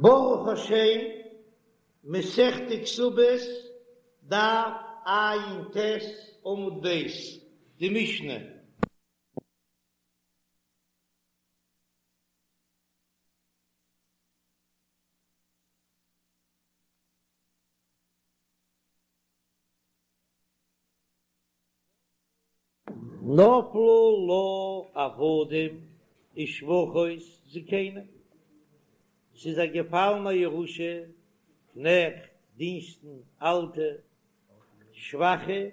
ברוך השם, מסכת כתובות, דף ע"ט עמוד ב', די משנה. נפלו לה עבדים ושפחות זקנים, ס'איז איר געפאלן א ירושה, קנעכט, דינסטן, אלטע, שוואכע,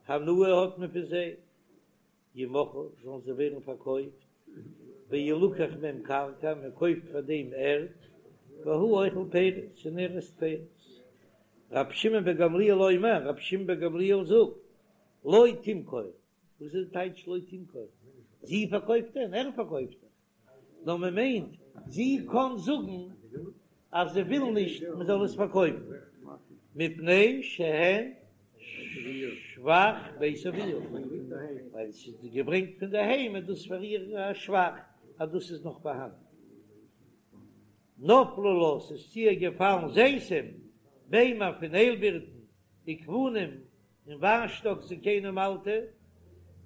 הנאה האט מען פון זיי, ימכרו, זאלן זיי ווערן פארקויפט, וילקח מהם קרקע, מען קויפט פאר דעם ערד, והוא אוכל פירות, און ער עסט פירות. רבי שמעון בן גמליאל אומר, רבי שמעון בן גמליאל זאגט, לא תמכור, וואס איז די טייטש לא תמכור? זי פארקויפט דען? ער פארקויפט דאך. נאר מען מיינט זי קען זאגן אז זי וויל נישט מען זאל עס פארקויפן, מפני שהן שבח בית אביה, ווייל עס איז געברענגט פון די היים איז דאס פאר איר א שבח אז דאס איז נאך פארהאן. נפלו לה, ס'איז צו איר געפאלן זיתים, ביימער פון איילבירטן, וגפנים, און וויינשטאק זקנים אלטע,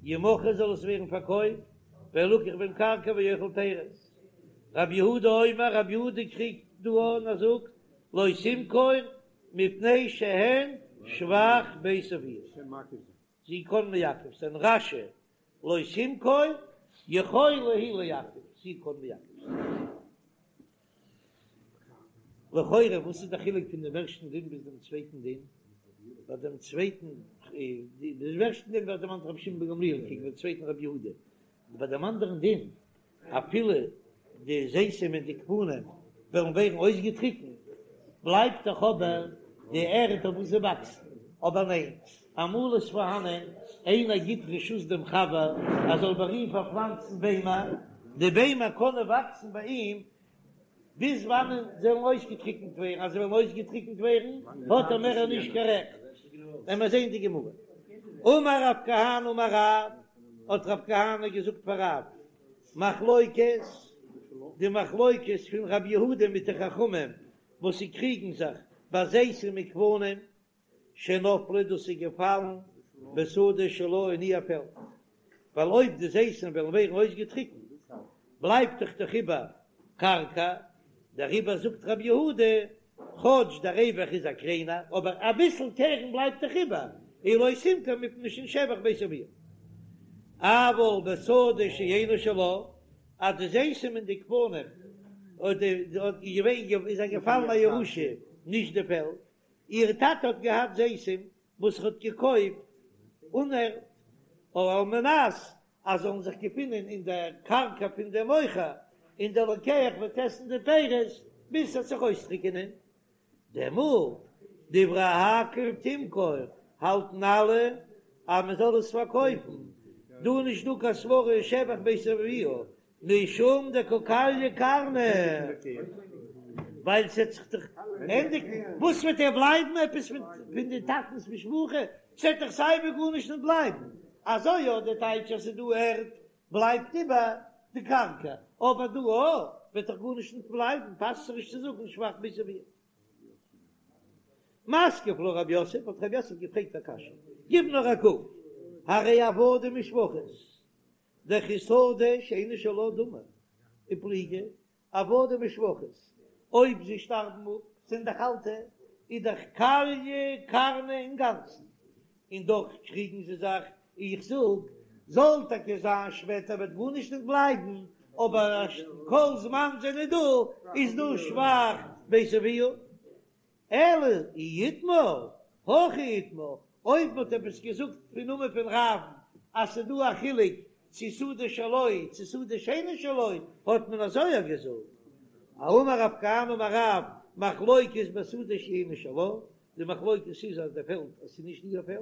ימכרו זאל עס ווערן פארקויפט, וילקח בהם קרקע והוא אוכל פירות. רבי יהודה אומר, רבי יהודה קריגט דא און ער זאגט, לא תמכור מפני שהן שבח בית אביה. זי קען מעכב זיין. רש"י, לא תמכור, יכולה היא לעכב, זי קען מעכב זיין. לכאורה וואס איז די חילוק פון דעם ערשטן דין ביז דעם צווייטן דין? ביי דעם צווייטן, דעם ערשטן דין ווערט דערמאנט רבי שמעון בן גמליאל קעגן דעם צווייטן רבי יהודה, ביי דעם אנדערן דין אפילו די זיתים און די גפנים וועלן ווערן אויסגעטריקנט, בלייבט דאך אבער די ערד אויף וואס זיי וואקסן, אבער ניין, אמאל איז פארהאנען איינער גיט רשות דעם חבר ער זאל ביי אים פארפלאנצן ביימער, די ביימער קענען וואקסן ביי אים ביז וואנען זיי וועלן אויסגעטריקנט ווערן, אז זיי וועלן אויסגעטריקנט ווערן האט ער מער נישט קיין רעכט, וועלן מיר זען די גמרא. אמר רב כהנא אמר רב, האט רב כהנא געזאגט פאר רב, מחלוקת, די מחלוקת פון רב יהודה מיט די חכמים וואס זיי קריגן זיך ביי זיתים וגפנים, שנפלו דאס איז געפאלן בשדה שלה אין איר פעלד, ווייל אויב די זיתים וועלן ווערן אויסגעטריקנט בלייבט דאך דאך איבער קרקע, דעריבער זאגט רבי יהודה, כאטש דער רווח איז א קליינער, אבער אביסל קרן בלייבט דאך איבער, און לא תמכור מפני שהן שבח בית אביה. אבל בשדה שאינה שלה, אז די זיתים און די גפנים איז איר געפאלן א ירושה, נישט די פעלד, איר טאטע האט געהאט זיתים וואס ער האט געקויפט אן ערד, על מנת אז זאלן זיך געפינען אין דער קרקע פון דעם מוכר, און דער לוקח וועט עסן די פירות ביז ס'וועט זיך אויסטריקענען. דעמאלט, דברי הכל תמכור, האלטן אלע אז מען זאל עס פארקויפן, דא איז נישט דא קיין סברא שבח בית אביה, משום דקא כליא קרנא, ווייל ס'עט זיך דאך ענדיגן, וואס וועט ער בלייבן עפעס פון די טאטנ'ס משפחה, ס'עט דאך סייווי גארנישט נישט בלייבן, אזוי יא די טייטש אז ס'איז דא ערד בלייבט איבער די קרקע, אבער דא אויך וועט דאך גארנישט נישט בלייבן, פאסט זיך נישט צו זאגן שבח בית אביה. מתקיף לה רב יוסף, האט רב יוסף געפרעגט א קשיא, גיב נאר א קוק, הרי עבדים ושפחות, דכשדה שאינה שלה דמי ופליגי עבדים ושפחות, אויב זיי שטארבן אפ זענען דאך אלטע, איז דאך כליא קרנא אינגאנצן, און דאך קריגן זיי זיך, איך זאג, זאל טאקע זיין שפעטער וועט גארנישט נישט בלייבן, אבער כל זמן זענען דא איז דא שבח בית אביה. אלא אי איתמר, הכי איתמר, אויב מ'האט עפעס געזאגט פון נאמען פון רב'ן אז ס'איז דא א חילוק צו שדה שלו צו שדה שאינה שלו, האט מען אזוי אויך געזאגט. אמר רב כהנא אמר רב, מחלוקת בשדה שאינה שלה, די מחלוקת איז אז די פעלד אז ס'איז נישט איר פעלד,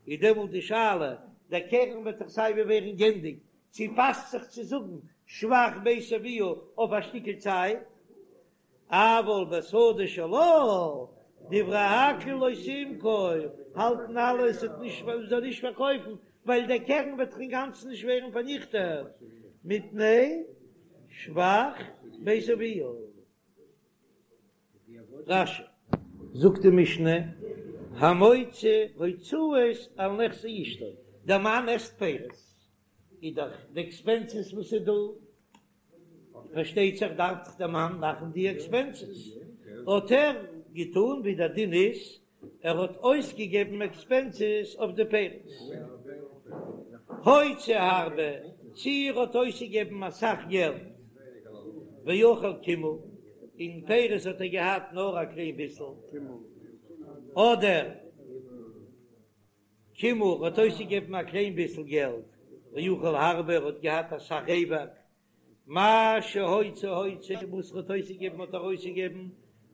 איז דעמאלט די שאלה, דער קרן וועט דאך סייווי ווערן גענדיגט, צו פאסט זיך צו זאגן שבח בית אביה אויף א שטיקל צייט, אבל בשדה שלה, דברי הכל לא תמכור, האלטן אלע עס וועט נישט מען זאל נישט פארקויפן, ווייל דער קרן וועט דאך אינגאנצן נישט ווערן פארניכטעט, מפני שבח בית אביה. רש"י. זאגט די משנה, המוציא הוצאות על נכסי אשתו, דער מאן עסט פירות, איז דאך די עקספענסעס וואס איז דא, פארשטייט זיך דארף דאך דער מאן מאכן די עקספענסעס, האט ער געטון ווי דער דין איז, ער האט אויסגעגעבן עקספענסעס אויף די פירות. הוציא הרבה, צי ער האט אויסגעגעבן אסאך געלט, ואכל קימעא, און פירות האט ער געהאט נאר א קליין ביסל, אדער קימעא, ער האט אויסגעגעבן א קליין ביסל געלט, ואכל הרבה, ער האט געהאט אסאך רווח, מה שהוציא הוציא, וואס ער האט אויסגעגעבן האט ער אויסגעגעבן,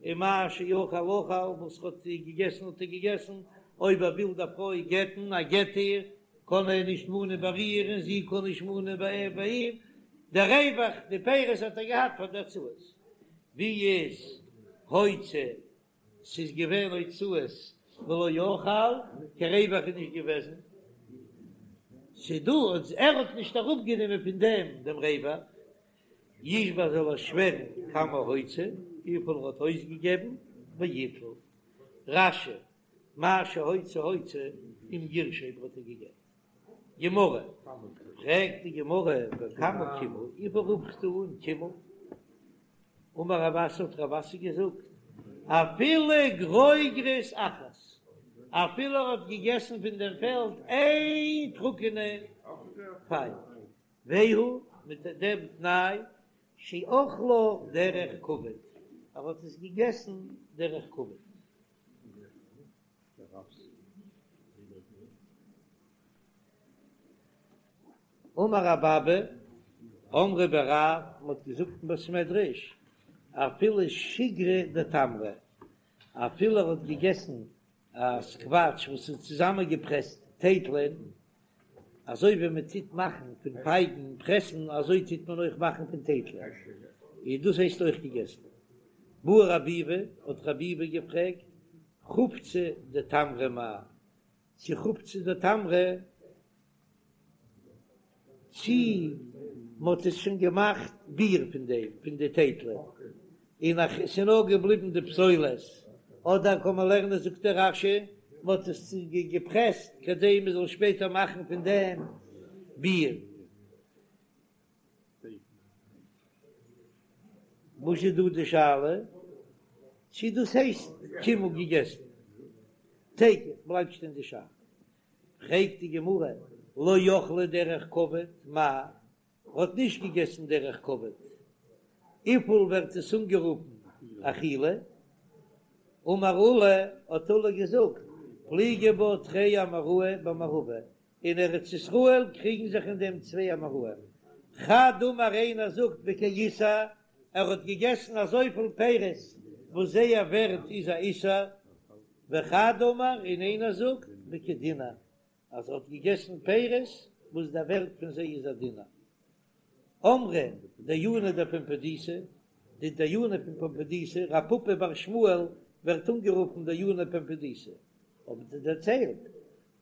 און מה שאכל אכל, וואס ער האט געגעסן האט ער געגעסן, אויב ער וויל די פרוי גט'ן, ער גט איר, קען ער נישט מאנען ביי איר און זי קען נישט מאנען ביי אים, דער רווח, די פירות האט ער געהאט פאר די הוצאות, ווי איז הוציא ס'איז געווען הוצאות ולא אכל, קיין רווח איז נישט געוועזן, ס'דא אז ער האט נישט אראפגענומען פון דעם דעם רווח, ישבע זאל ער שווערן כמה הוציא, וויפיל ער האט אויסגעגעבן, ויטול. רש"י, מה שהוציא הוציא, אם גירשה אויב ער האט איר געגט. גמרא, פרעגט די גמרא, וכמה קימעא, וויפיל רופסטו אן קימעא? אמר רב אסי האט רב אסי געזאגט, אפילו גרוגרת אחת, אפילו ער האט געגעסן פון דעם פעלד איין טרוקענע פייג, והוא מיט דעם תנאי שאכלה דרך כבוד, ער האט עס געגעסן דרך כבוד. אמר רב אבא, אמרי בי רב, מ'האט געזאגט אין בית מדרש, אפילו שיגרא דתמרי, אפילו ער האט געגעסן א סקוואטש וואס איז צוזאמענגעפרעסט טייטלען, אזוי ווי מען טוט מאכן פון פייגן פרעסן אזוי טוט מען אויך מאכן פון טייטלען, און דאס הייסט אויך געגעסן. בעי רב ביבי, האט רב ביבי געפרעגט, חובצא דתמרי מאי, צו חובצא דתמרי, צי מ'האט עס שוין געמאכט ביר פון דעם, פון די טייטלען, און אז ס'איז נאר געבליבן די פסולת, אדער קען מען לערנען זאגט דער רש"י, מ'האט עס געפרעסט כדי מ'זאל שפעטער מאכן פון דעם ביר. וואס איז דא די שאלה? צי דאס הייסט קימעא געגעסן? תיקו בלייבט שטיין די שאלה. פרעגט די גמרא, לא אכלה דרך כבוד, מאי? האט נישט געגעסן דרך כבוד, וויפיל ווערט עס אנגערופן אכילה? אמר עולא, האט עולא געזאגט, פליגי בה תרי אמוראי במערבא, אין ארץ ישראל קריגן זיך אין דעם צוויי אמוראים, חד אמר איינער זאגט בכאיסר, ער האט געגעסן אזויפיל פירות וואס זייער ווערט איז א איסר, וחד אמר און איינער זאגט בכדינר, אז ער האט געגעסן פירות וואס דער ווערט פון זיי איז א דינר. אמרי דייני דפומבדיתא, די דיינים פון פומבדיתא, רב פפא בר שמואל ווערט אנגערופן דייני פומבדיתא, האבן זיי דערציילט,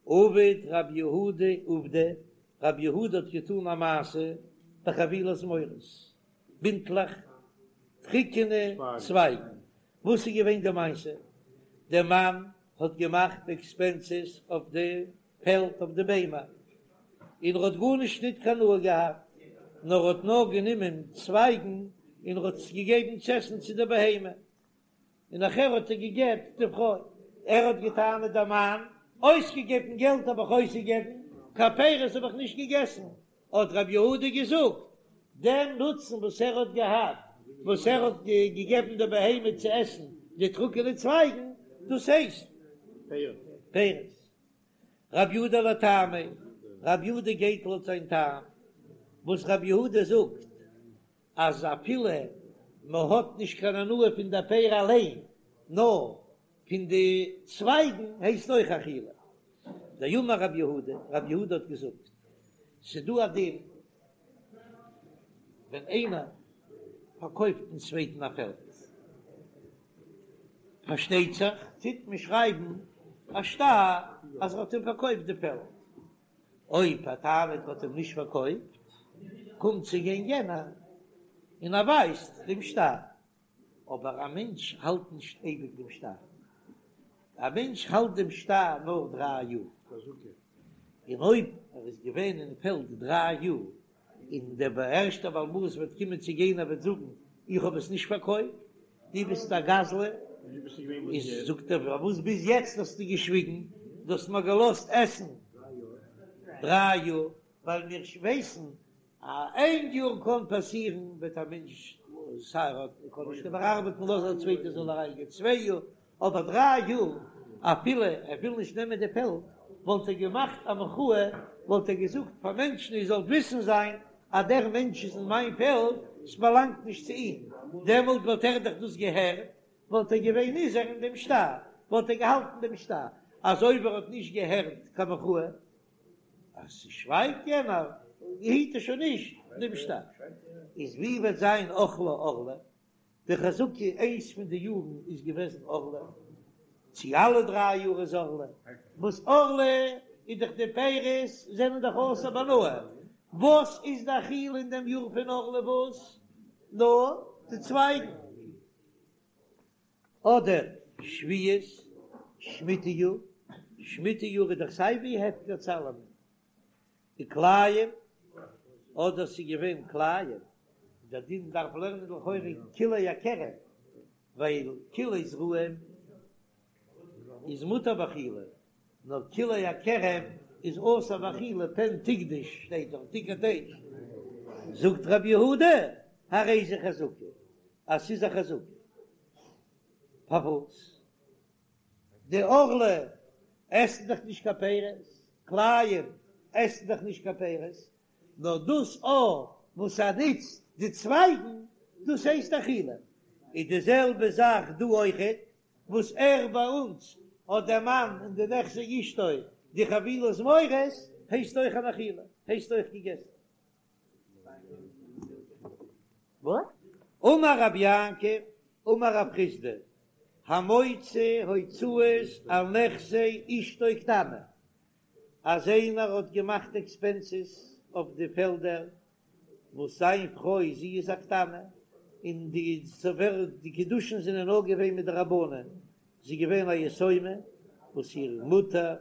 עבד רב יהודה עובדא, רב יהודה האט געטאן א מעשה בחבילי זמורות, בינטלעך טריקענע צווייגן, וואס איז געווען די מעשה? דער מאן האט געמאכט עקספענסעס אויף די פעלד אויף די ביימער, און ער האט גארנישט ניט קיין הנאה געהאט, נאר ער האט נאר גענומען צווייגן און ער האט עס געגעבן צו עסן צו די בהמה, און נאכער האט ער געגעט די פרוי. ער האט געטענה'ט דער מאן, אויסגעגעבן געלט האב איך אויסגעגעבן, קיין פירות האב איך נישט געגעסן, האט רב יהודה געזאגט, דעם נוצן וואס ער האט געהאט, וואס ער האט געגעבן די בהמה צו עסן די טרוקענע צווייגן, דאס הייסט פירות. רב יהודה לטעמיה, רב יהודה גייט לויט זיין טעם, וואס רב יהודה זאגט אז אפילו מען האט נישט קיין הנאה פון די פרי אליין, נאר פון די צווייגן הייסט אויך אכילה. דאמר רב יהודה, רב יהודה האט געזאגט, ס'דא א דין ווען איינער פארקויפט דעם צווייטן א פעלד, פארשטייט זיך טוט מען שרייבן א שטר אז ער האט אים פארקויפט די פעלד, אויב ער טענה'ט ער האט אים נישט פארקויפט, קומט צו גיין יענער און ער ווייזט דעם שטר. אבער א מענטש האלט נישט אייביג דעם שטר, א מענטש האלט דעם שטר נאר דריי יאר, און אויב ער איז געווען אין פעלד דריי יאר, און דער ערשטער בעל הבית וועט קומען צו גיין ער וועט זאגן איך האב עס נישט פארקויפט, דו ביסט א גזלן, איז זאגט ער פארוואס ביז יעצט האסטו געשוויגן, דו האסט מיר געלאזט עסן דריי יאר, ווייל מיר ווייסן אז איין יאר קען פאסירן וועט א מענטש סיי ער קען נישט איבערארבעטן לאז א צווייטער זאל אריינגיין צוויי יאר, אבער דריי יאר אפילו ער וויל נישט נעמען די פעלד וואלט ער געמאכט א מחאה וואלט ער געזאגט פאר מענטשן איר זאלט וויסן זיין אז דער מענטש איז אין מיין פעלד ס'באלאנגט נישט צו אים דעמאלט וואלט ער דאך דאס געהערט וואלט ער געווען נזהר אין דעם שטר וואלט ער געהאלטן דעם שטר אז אויב ער האט נישט געהערט קיין מחאה אז ס'שווייגט יענער היט ער שוין נישט דעם שטר איז ווי וועט זיין אכלה ערלה די חזקה איינס פון די יארן איז געוועזן ערלה, צו אלע דריי יאר איז ערלה, וואס ערלה איז דאך די פירות זענען דאך אסור בהנאה, וואס איז די אכילה אין דעם יאר פון ערלה וואס? נאר די צווייגן. אדער שביעית, שמיטה יאר, שמיטה יאר איז דאך סיי ווי הפקר צו אלעמען, וכלאים, אדער ס'איז געווען כלאים, דער דין דארף לערנען לכאורה כלאי הכרם, ווייל כלאי זרעים איז מותר באכילה, נאר כלאי הכרם איז אסור באכילה, פן תקדש שטייט דאך תוקד אש, זאגט רבי יהודה, הרי זו חזקה, אז ס'איז א חזקה, פארוואס? די ערלה עסן דאך נישט קיין פירות, כלאים עסן דאך נישט קיין פירות, נאר דאס א וואס ער נוצט די צווייגן, דאס הייסט אכילה. איז די זעלבע זאך דא אויכעט, וואס ער ביי אונז האט דער מאן אין די נכסי אשתו די חבילי זמורות, הייסט אויך אן אכילה, הייסט אויך געגעסן. אמר רב יעקב אמר רב חסדא, המוציא הוצאות על נכסי אשתו קטנה, אז איינער האט געמאכט עקספענסעס אויף די פעלדער וואס זיין פרוי זי איז א קטנה, און די די קידושין זענען נאר געווען מדרבנן, זי איז געווען א יתומה וואס איר מוטער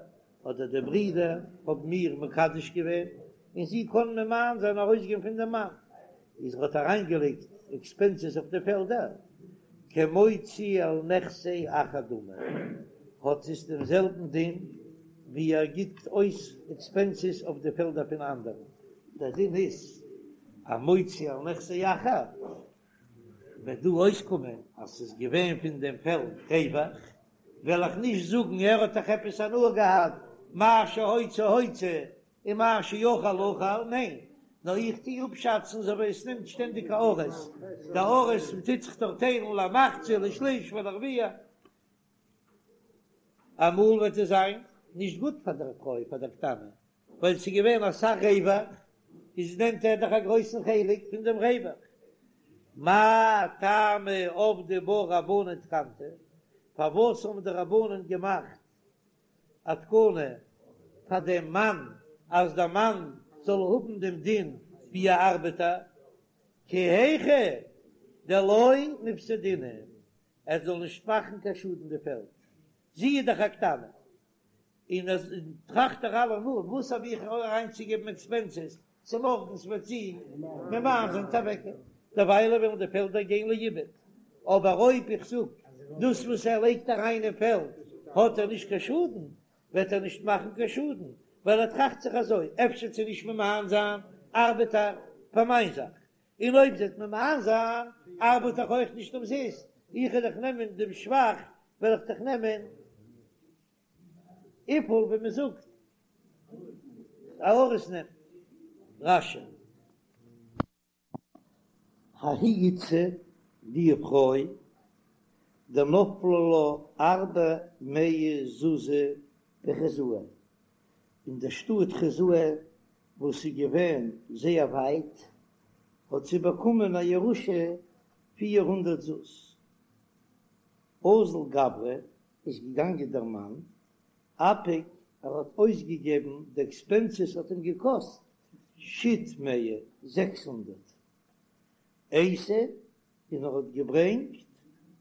אדער די ברידער האבן איר מקדש געווען, און זי קען ממאן זיין ארויסגיין פון דעם מאן, איז ער האט אריינגעלייגט עקספענסעס אויף די פעלדער, כמוציא על נכסי אחר דמי, האט עס דעם זעלבן דין ווי ער גיבט אויס עקספענסעס אויף די פעלדער פון אנדערן, דער דין איז א מוציא על נכסי אחר, וועט דא אויסקומען אז ס'איז געווען פון דעם פעלד רווח, וועל איך נישט זאגן ער האט דאך עפעס הנאה געהאט, מה שהוציא הוציא און מה שאכל אכל, ניין, נאר איך טוה אפשאצן אזוי ווי עס נעמט שטענדיג א אריס, די אריס טוט זיך דאך טיילן למחצה לשליש ולרביע, אמאל וועט עס זיין נישט גוט פאר דער פרוי פאר דער קטנה, ווייל ס'איז געווען אסאך רווח, איז נעמט ער דאך א גרויסן חלק פון דעם רווח. מאי טעמא עבדו בה רבנן תקנתא, פארוואס האבן די רבנן געמאכט א תקנה פאר דעם מאן אז דער מאן זאל האבן דעם דין ווי א ארבעטער, כי היכי דלא מיפסדינהו, ער זאל נישט מאכן קיין שאדן די פעלד, זי איז דאך א קטנה, און אז טראכט ער אלעמאל וואס האב איך אריינצוגעבן עקספענסעס, צומארגנס וועט זי ממאן זיין אוועקגיין, דערוויילע וועלן די פעלדער גיין לאיבוד, אבער אויב איך זאג דאס וואס ער לייגט אריין אין פעלד האט ער נישט קיין שאדן, וועט ער נישט מאכן קיין שאדן, ווייל ער טראכט זיך אזוי, אפשר וועט זי נישט ממאן זיין, ארבעט ער פאר מיין זאך, און אויב זי וועט ממאן זיין, ארבעט איך אויך נישט אומזיסט, איך וועל דאך נעמען דעם שבח, וועל איך דאך נעמען. וויפיל ווי מען זאגט א אריס נעמט רש"י. ההיא איתתא די פרוי דנפלו לה ארבע מאה זוזי בחוזאי אין דער שטאט חוזאי וואס איז געווען זייער ווייט האט זי באקומען א ירושה 400 זוז. אזל גברא איז געגאנגען דער מאן, אפיק ער האט אויסגעגעבן די עקספענסעס האט אים געקאסט שית מאה 600 אייתי און ער האט געברענגט.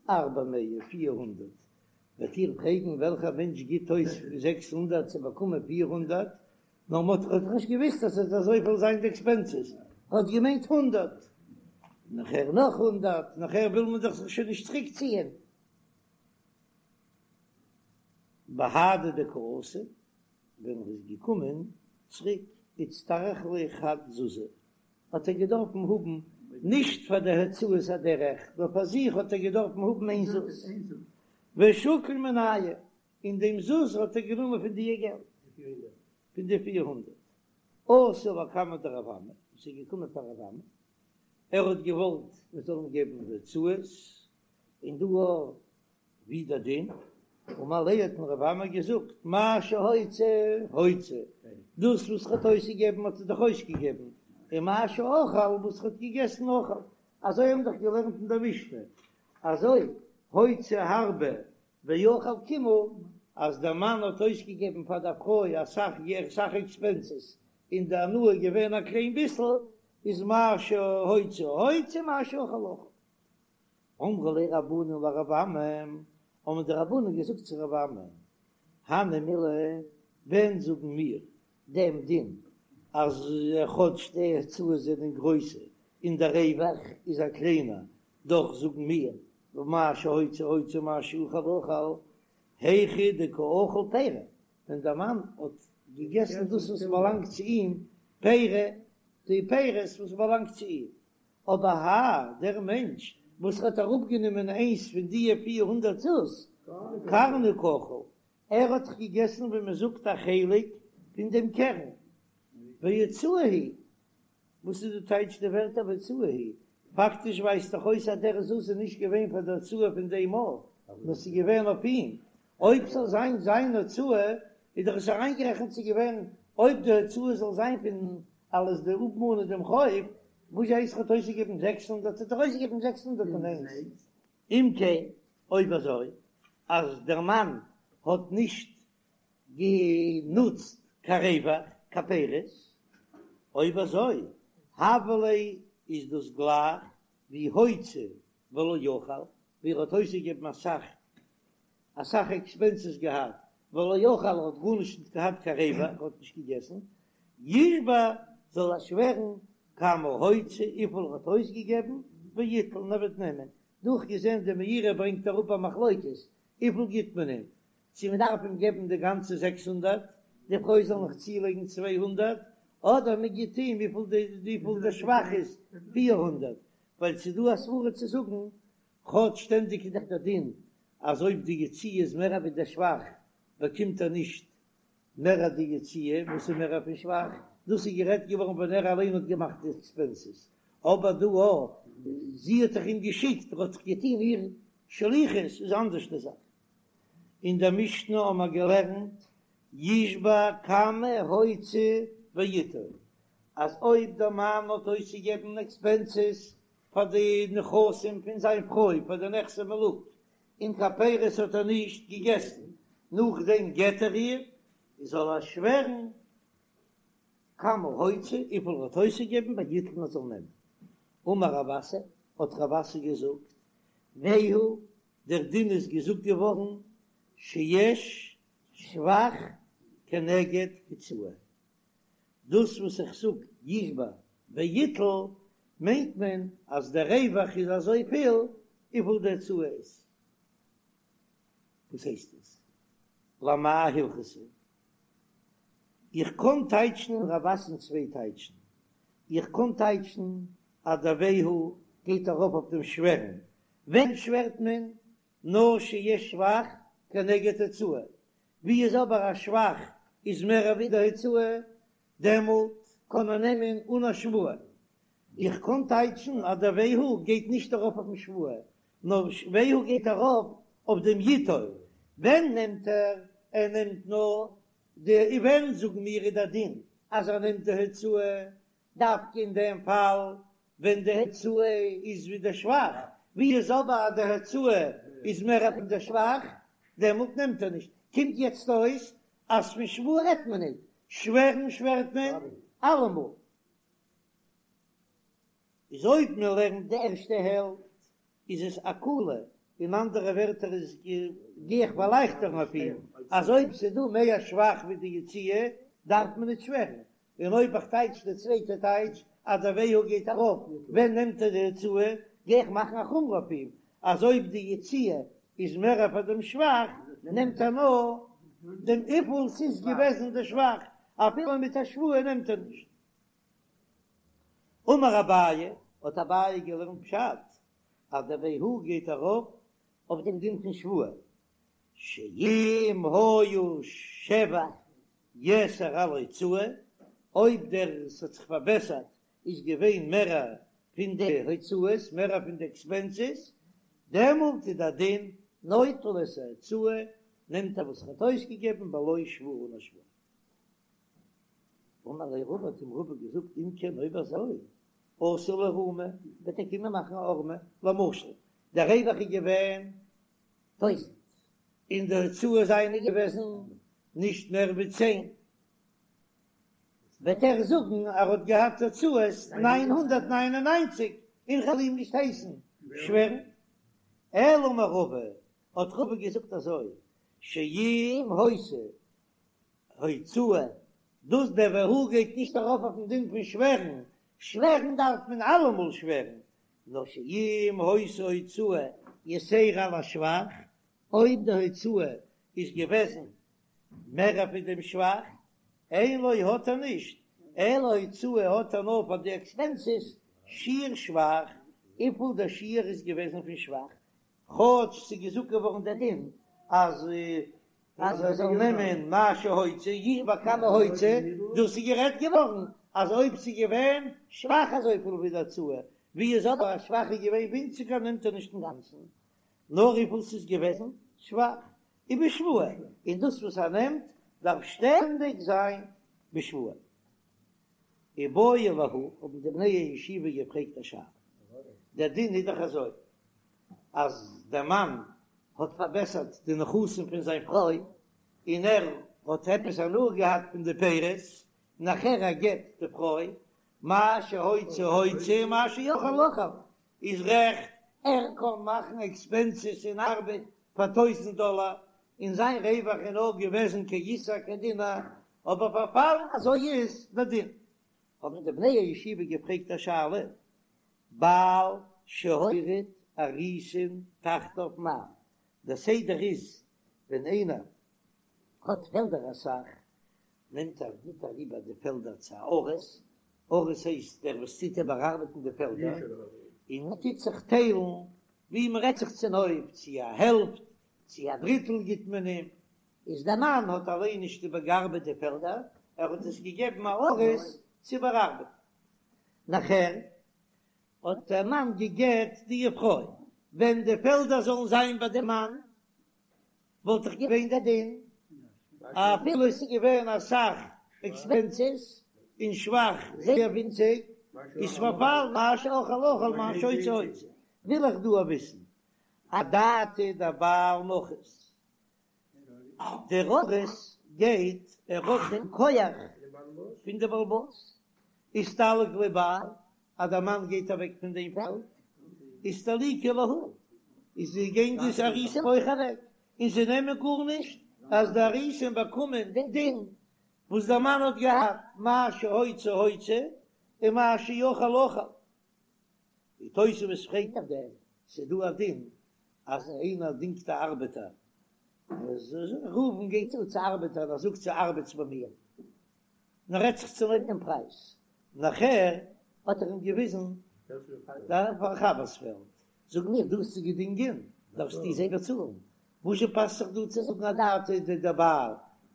ארבע מאה, 400. וועט איר פרעגן וועלכער מענטש גיט אויס 600 צו באקומען 400, נאר מען האט דאך נישט געוויסט אז עס וועט אזויפיל זיין די עקספענסעס, ער האט געמיינט הונדערט, נאכער נאך הונדערט, נאכער וויל מען דאך זיך שוין נישט צוריק ציען. בהדי דקא אתא, ווען ער איז געקומען צוריק איצטריך ליה חד זוזא, האט ער געדארפן האבן נישט פאר די הוצאות הדרך, נאר פאר זיך האט ער געדארפן האבן איין זוז, ושקיל מינייהו, און דעם זוז האט ער גענומען פון די געלט, פון די 400. אתא לקמיה דרב אמי, עס איז געקומען פאר רב אמי, ער האט געוואלט מען זאל אים געבן די הוצאות, און דא ווי דער דין, אמר ליה האט אים רב אמי געזאגט, מה שהוציא הוציא, דאס וואס ער האט אויסגעגעבן האט ער דאך אויסגעגעבן, און מה שאכל וואס ער האט געגעסן אכל, אזוי האבן דאך געלערנט אין דער משנה, אזוי הוציא הרבה ואכל קימעא, אז דער מאן האט אויסגעגעבן פאר דער פרוי אסאך אסאך עקספענסעס, און די הנאה איז געווען א קליין ביסל, איז מה שהוציא הוציא מה שאכל אכל. אמרו ליה רבנן לרב אמי, האבן די רבנן געזאגט צו רב אמי, הני מילי, ווען זאגן מיר דעם דין אז כאטש די הוצאות זענען גרויסע און דער רווח איז א קליינער, דאך זאגן מיר מה שהוציא הוציא מה שאכל אכל, היכא דקא אכיל פירי, ווען דער מאן האט געגעסן דאס וואס באלאנגט צו אים, פירי, די פירות וואס באלאנגט צו אים, אבער האי, דער מענטש וואס האט אראפגענומען איינס פון דיע 400 זוז, קרנא קאכיל, ער האט דאך געגעסן ווי מען זאגט א חלק פון דעם קרן, והוצאה היא, וואס איז די טייטש די ווערטער והוצאה היא? פאקטיש ווייזט דאך אויס אז דער זוז איז נישט געווען פאר די הוצאה פון דעם מאל, נאר ס'איז געווען אויף אים, אויב ס'זאל זיין זיין הוצאה איז דאך עס אריינגערעכנט צו געווען אויב די הוצאה זאל זיין פון אלעס די אפמאנען דעם חוב, וואס הייסט ער האט אויסגעגעבן 600 האט ער אויסגעגעבן 601. אם כן, אויב אזוי אז דער מאן האט נישט גענוצט קיין רווח, קיין פירות, אויב אזוי הוה ליה איז דאס גלייך ווי הוציא ולא אכל, ווי ער האט אויסגעגעבן אסאך אסאך עקספענסעס געהאט, ולא אכל ער האט גארנישט נישט געהאט קיין רווח, ער האט נישט געגעסן, ישבע זאל ער שווערן כמה הוציא וויפיל ער האט אויסגעגעבן, ויטול און ער וועט נעמען, דאך געזען די מאירי ברענגט אראפ א מחלוקת, וויפיל גיט מען אים, צו מען דארף אים געבן די גאנצע 600, די פרוי זאל נאך צולייגן 200, אדער מען גיט אים וויפיל די וויפיל די שבח איז, 400, ווייל ס'איז דא א סברא צו זאגן, כאטש שטענדיג איז דאך דער דין אז אויב די יציאה איז מער ווי דער שבח באקומט ער נישט מער די יציאה וואס איז מער פון שבח, דאס איז גערעדט געווארן ווען ער אליין האט געמאכט די עקספענסעס, אבער דא א זי האט דאך אים געשיקט, ער האט דאך געטון איר שליחות, איז אנדערש די זאך. אין דער משנה האבן מיר געלערנט ישבע כמה הוציא ויטול, אז אויב דער מאן האט אויסגעגעבן עקספענסעס פאר די נכסים פון זיין פרוי פאר די נכסי מלוג, און קיין פירות האט ער נישט געגעסן, נאכדעם גט ער איר, זאל ער שווערן כמה הוציא, וויפיל ער האט אויסגעגעבן, ויטול ער זאל נעמען. אמר רב אסי, האט רב אסי געזאגט, והוא, דער דין איז געזאגט געווארן, שיש שבח כנגד הוצאה, דאס וואס איך זאג ישבע ויטול מיינט מען אז דער רווח איז אזויפיל וויפיל די הוצאה איז. וואס הייסט עס? למאי הלכתא? איך קען טייטשן רב אסי'ן צוויי טייטשן. איך קען טייטשן אז דער והוא גייט ארויף אויף דעם שווערן. ווען שווערט מען? נאר שיש שבח כנגד הוצאה, ווי איז אבער א שבח איז מער ווי די הוצאה, דעמאלט קען ער נעמען אן א שבועה. איך קען טייטשן אז דער והוא גייט נישט ארויף אויפן שבועה, נאר והוא גייט ארויף אויף דעם יטול. ווען נעמט ער? ער נעמט נאר די, ווען זאגן מיר איז דער דין אז ער נעמט די הוצאה, דווקא אין דעם פאל ווען די הוצאה איז ווי די שבח, ווי איז אבער אז די הוצאה איז מער פון די שבח, דעמאלט נעמט ער נישט. קומט יעצט אויס אז פון שבועה רעדט מען ניט, שווערן שווערט מען אלעמאל. איז אויב מען לערנט די ערשטע העלפט איז עס א קולא. אין אנדערע ווערטער איז גיי איך פארלייכטערן אויף אים, אז אויב ס'איז דא מער שבח ווי די יציאה דארף מען נישט שווערן, און אויב איך טייטש די צווייטע טייטש אז דער והוא גייט ארויף ווען נעמט ער די הוצאה, גיי איך מאכן א חומרא אויף אים אז אויב די יציאה איז מער פאר דעם שבח נעמט ער נאר דעם וויפיל ס'איז געוועזן די שבח, אפילו מיט א שבועה נעמט ער נישט. אמר אביי, האט אביי געלערנט פשט אז דער והוא גייט ארויף אויף דעם דין פון שבועה, שאם היה שבח יתר על הוצאה, אויב דער ס'האט זיך פארבעסערט איז געווען מערער פון די הוצאות, מערער פון די עקספענסעס, דעמאלט איז דער דין נוטל את ההוצאה, נעמט ער וואס ער האט אויסגעגעבן בלא שבועה אן א שבועה. אמר ליה רבא האט אים רבא געזאגט אם כן אויב אזוי אתי לאיערומי וועט ער קומען מאכן א הערמה, למשל דער רווח איז געווען טויזענט און די הוצאות זיינען געוועזן נישט מער ווי צען, וועט ער זאגן ער האט געהאט הוצאות 999 און כ'וועל אים נישט הייסן שווערן. אלא אמר רבא האט רבא געזאגט אזוי שאם היתה הוצאה, דאס דער והוא גייט נישט ארויף אויפן דין פון שווערן, שווערן דארף מען אלעמאל שווערן, נאר שאם היתה הוצאה יתירה על השבח, אויב די הוצאה איז געוועזן מער פון דעם שבח, אין לו האט ער נישט, אלא הוצאה האט ער נאר פאר די עקספענסעס, שיעור שבח, וויפיל דער שיעור איז געוועזן פון שבח, כאטש ס'איז געזאגט געווארן דער דין אז אז ער זאל נעמען מה שהוציא ישבע כמה הוציא, דאס איז גערעדט געווארן אז אויב ס'איז געווען שבח אזויפיל ווי די הוצאה, ווי איז אבער אז שבח איז געווען ווינציגער נעמט ער נישט אינגאנצן, נאר וויפיל ס'איז געוועזן שבח ובשבועה, און דאס וואס ער נעמט דארף שטענדיג זיין בשבועה. איבעיא להו, האבן די בני הישיבה געפרעגט א שאלה, דער דין איז דאך אזוי, אז דער מאן האט פארבעסערט די נכסים פון זיין פרוי, און ער האט עפעס הנאה געהאט פון די פירות, נאכער ער גט די פרוי, מה שהוציא הוציא מה שאכל אכל, איז רעכט, ער קען מאכן עקספענסעס און ארבעט פאר טויזענט דאלער, און זיין רווח איז נאר געוועזן כאיסר כדינר, אבער פארפאלן אזוי איז דער דין. האבן די בני הישיבה געפרעגט א שאלה, בעל שהוריד אריסין תחתיו מהו, דער סדר איז ווען איינער האט פעלדער אסאך, נעמט ער גיט אריבער די פעלדער צו א אריס, אריס הייסט דער וואס טוט איבערארבעטן די פעלדער, און מען טוט זיך טיילן ווי מען רעדט זיך צונויף, צו א העלפט צו א דריטל גיט מען אים, איז דער מאן האט אליין נישט איבערגעארבעט די פעלדער, ער האט עס געגעבן א אריס צו איבערארבעטן. נאכער האט דער מאן גע'גט די פרוי, ווען די פעלדער זאלן זיין ביי דעם מאן וואלט דאך געווען דער דין אפילו עס איז געווען אסאך עקספענסעס און שבח זייער ווינציג, איז פארפאלן מה שאכל אכל מה שהוציא הוציא, וויל איך דא וויסן אדעתא דבעל נחית, דער אריס גייט ער האט דעם כח פון די בעל הבית, אסתלק ליה בעל, אז דער מאן גייט אוועק פון דעם פעלד, אסתליקו להו, איז זיי גייען די אריסים אויך אוועק, און זיי נעמען גארנישט, אז די אריסים באקומען דעם דין וואס דער מאן האט געהאט, מה שהוציא הוציא, און מה שאכל אכל. די תוספות פרעגט אויף דעם, ס'איז דא א דין אז איינער דינגט א ארבעטער, ראובן גייט צו צו ארבעטער און ער זאגט צו ארבעטס ביי מיר, און ער רעדט זיך צונויף דעם פרייז, נאכער האט ער אים געוויזן דער חבר'ס פעלד, זאג מיר דו האסט זיי געדינגען, דארפסטו זיי באצאלן, וואזשע פאסט זיך דא צו זאגן אדעתא דבעל,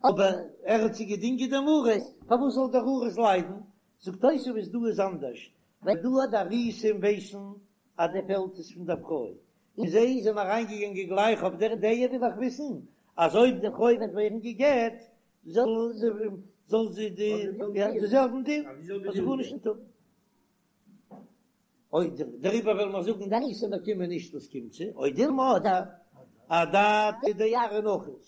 אבער ער האט זיי געדינגען דעם אריס, פארוואס זאל דער אריס ליידן, זאגט תוספות דא איז אנדערש, ווייל דא די אריסים ווייסן אז די פעלד איז פון דער פרוי, און זיי זענען אריינגעגאנגען גלייך אויף דער דעה וויל איך וויסן אז אויב די פרוי וועט ווערן גע'גט זאל זי זאל זי די די זעלבן דין זאל זי גארנישט נישט האבן. אוי דעריבער וועלן מיר זאגן די אריסים באקומען נישט וואס קומט זיי, או דילמא אדער אדעתא דארעא נחית,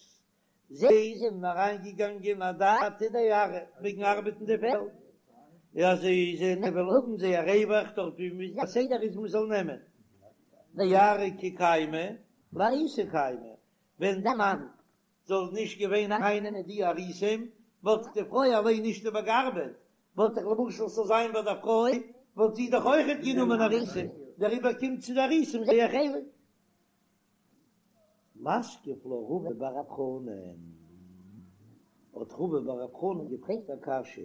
זיי זענען אריינגעגאנגען אדעתא דארעא וועגן ארבעטן די פעלד, אז זיי זענען וועלן האבן זייער רווח דארט ווי די סדר איז מען זאל נעמען, דארעא כי קיימא. לאריסי קיימא, ווען דער מאן זאל נישט געווען ארייננעמען די אריסים, וואלט די פרוי אליין נישט איבערגעארבעט, וואלט דאך למשל ס'זאל זיין ביי דער פרוי, וואלט זי דאך אויכעט גענומען אריסים, דעריבער קומט צו די אריסים זייער חלק. מתקיף לה רבא בר רב חנן, האט רבא בר רב חנן געפרעגט א קשיא.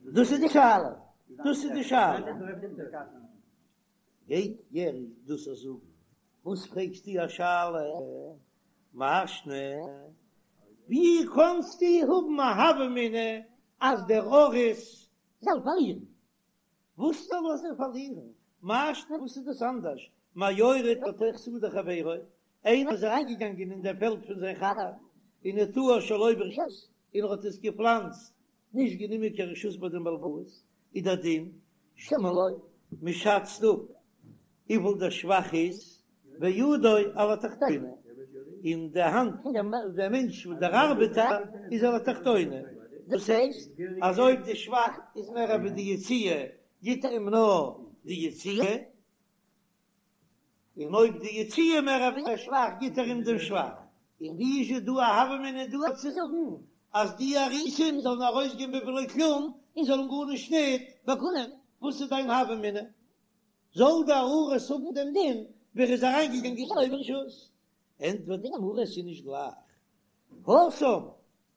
דאס איז די שאלה, דאס איז די שאלה. גייט ער דאס זאגן? וואס פרעגסטו א שאלה? מאי שנא, ווי קענסטו האבן א הוה אמינא אז דער אריס זאל פארלירן? וואס זאל ער זיך פארלירן? מאי שנא וואס איז דאס אנדערש מהיורד לתוך שדה חברו, איינער איז אריינגעגאנגען אין דער פעלד פון זיין חבר ונטעו שלא ברשות און ער האט עס געפלאנצט נישט גענומען קיין רשות ביי דעם בעל הבית, איז דער דין שומין לו, מען שאצט אפ וויפיל דער שבח איז, וידו על התחתונה, און די האנט פון דעם מענטש דער ארבעטער איז על התחתונה, דאס הייסט אז אויב די שבח איז מער ווי די יציאה גיט ער אים נאר די יציאה, און אויב די יציאה מער ווי דער שבח גיט ער אים דעם שבח, און ווי איז דא א הוה אמינא דא צו זאגן אז די אריסים זאלן ארויסגיין בבלא כלום און זאלן גארנישט ניט באקומען, וואס איז דיין הוה אמינא? זאל דער אריס האבן דעם דין ווי ער איז אריינגעגאנגען שלא ברשות? ענטפערט די גמרא עס איז נישט גלייך התם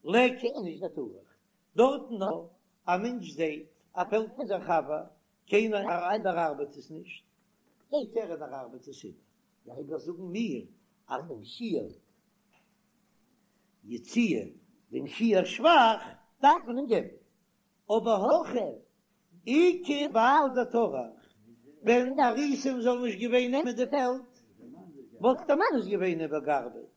ליכא איניש דטרח, דארטן נאר א מענטש זעט א פעלד פון זיין חבר קיינער איבערארבעט עס נישט, גייט ער און ער ארבעט עס איבער, דעריבער זאגן מיר אז דעם שיעור יציאה, דעם שיעור שבח דארף מען אים געבן, אבער הכא איכא בעל דטרח, ווען די אריסים זאלן נישט געווען נעמען די פעלד, וואלט דער מאן עס געווען איבערגעארבעט,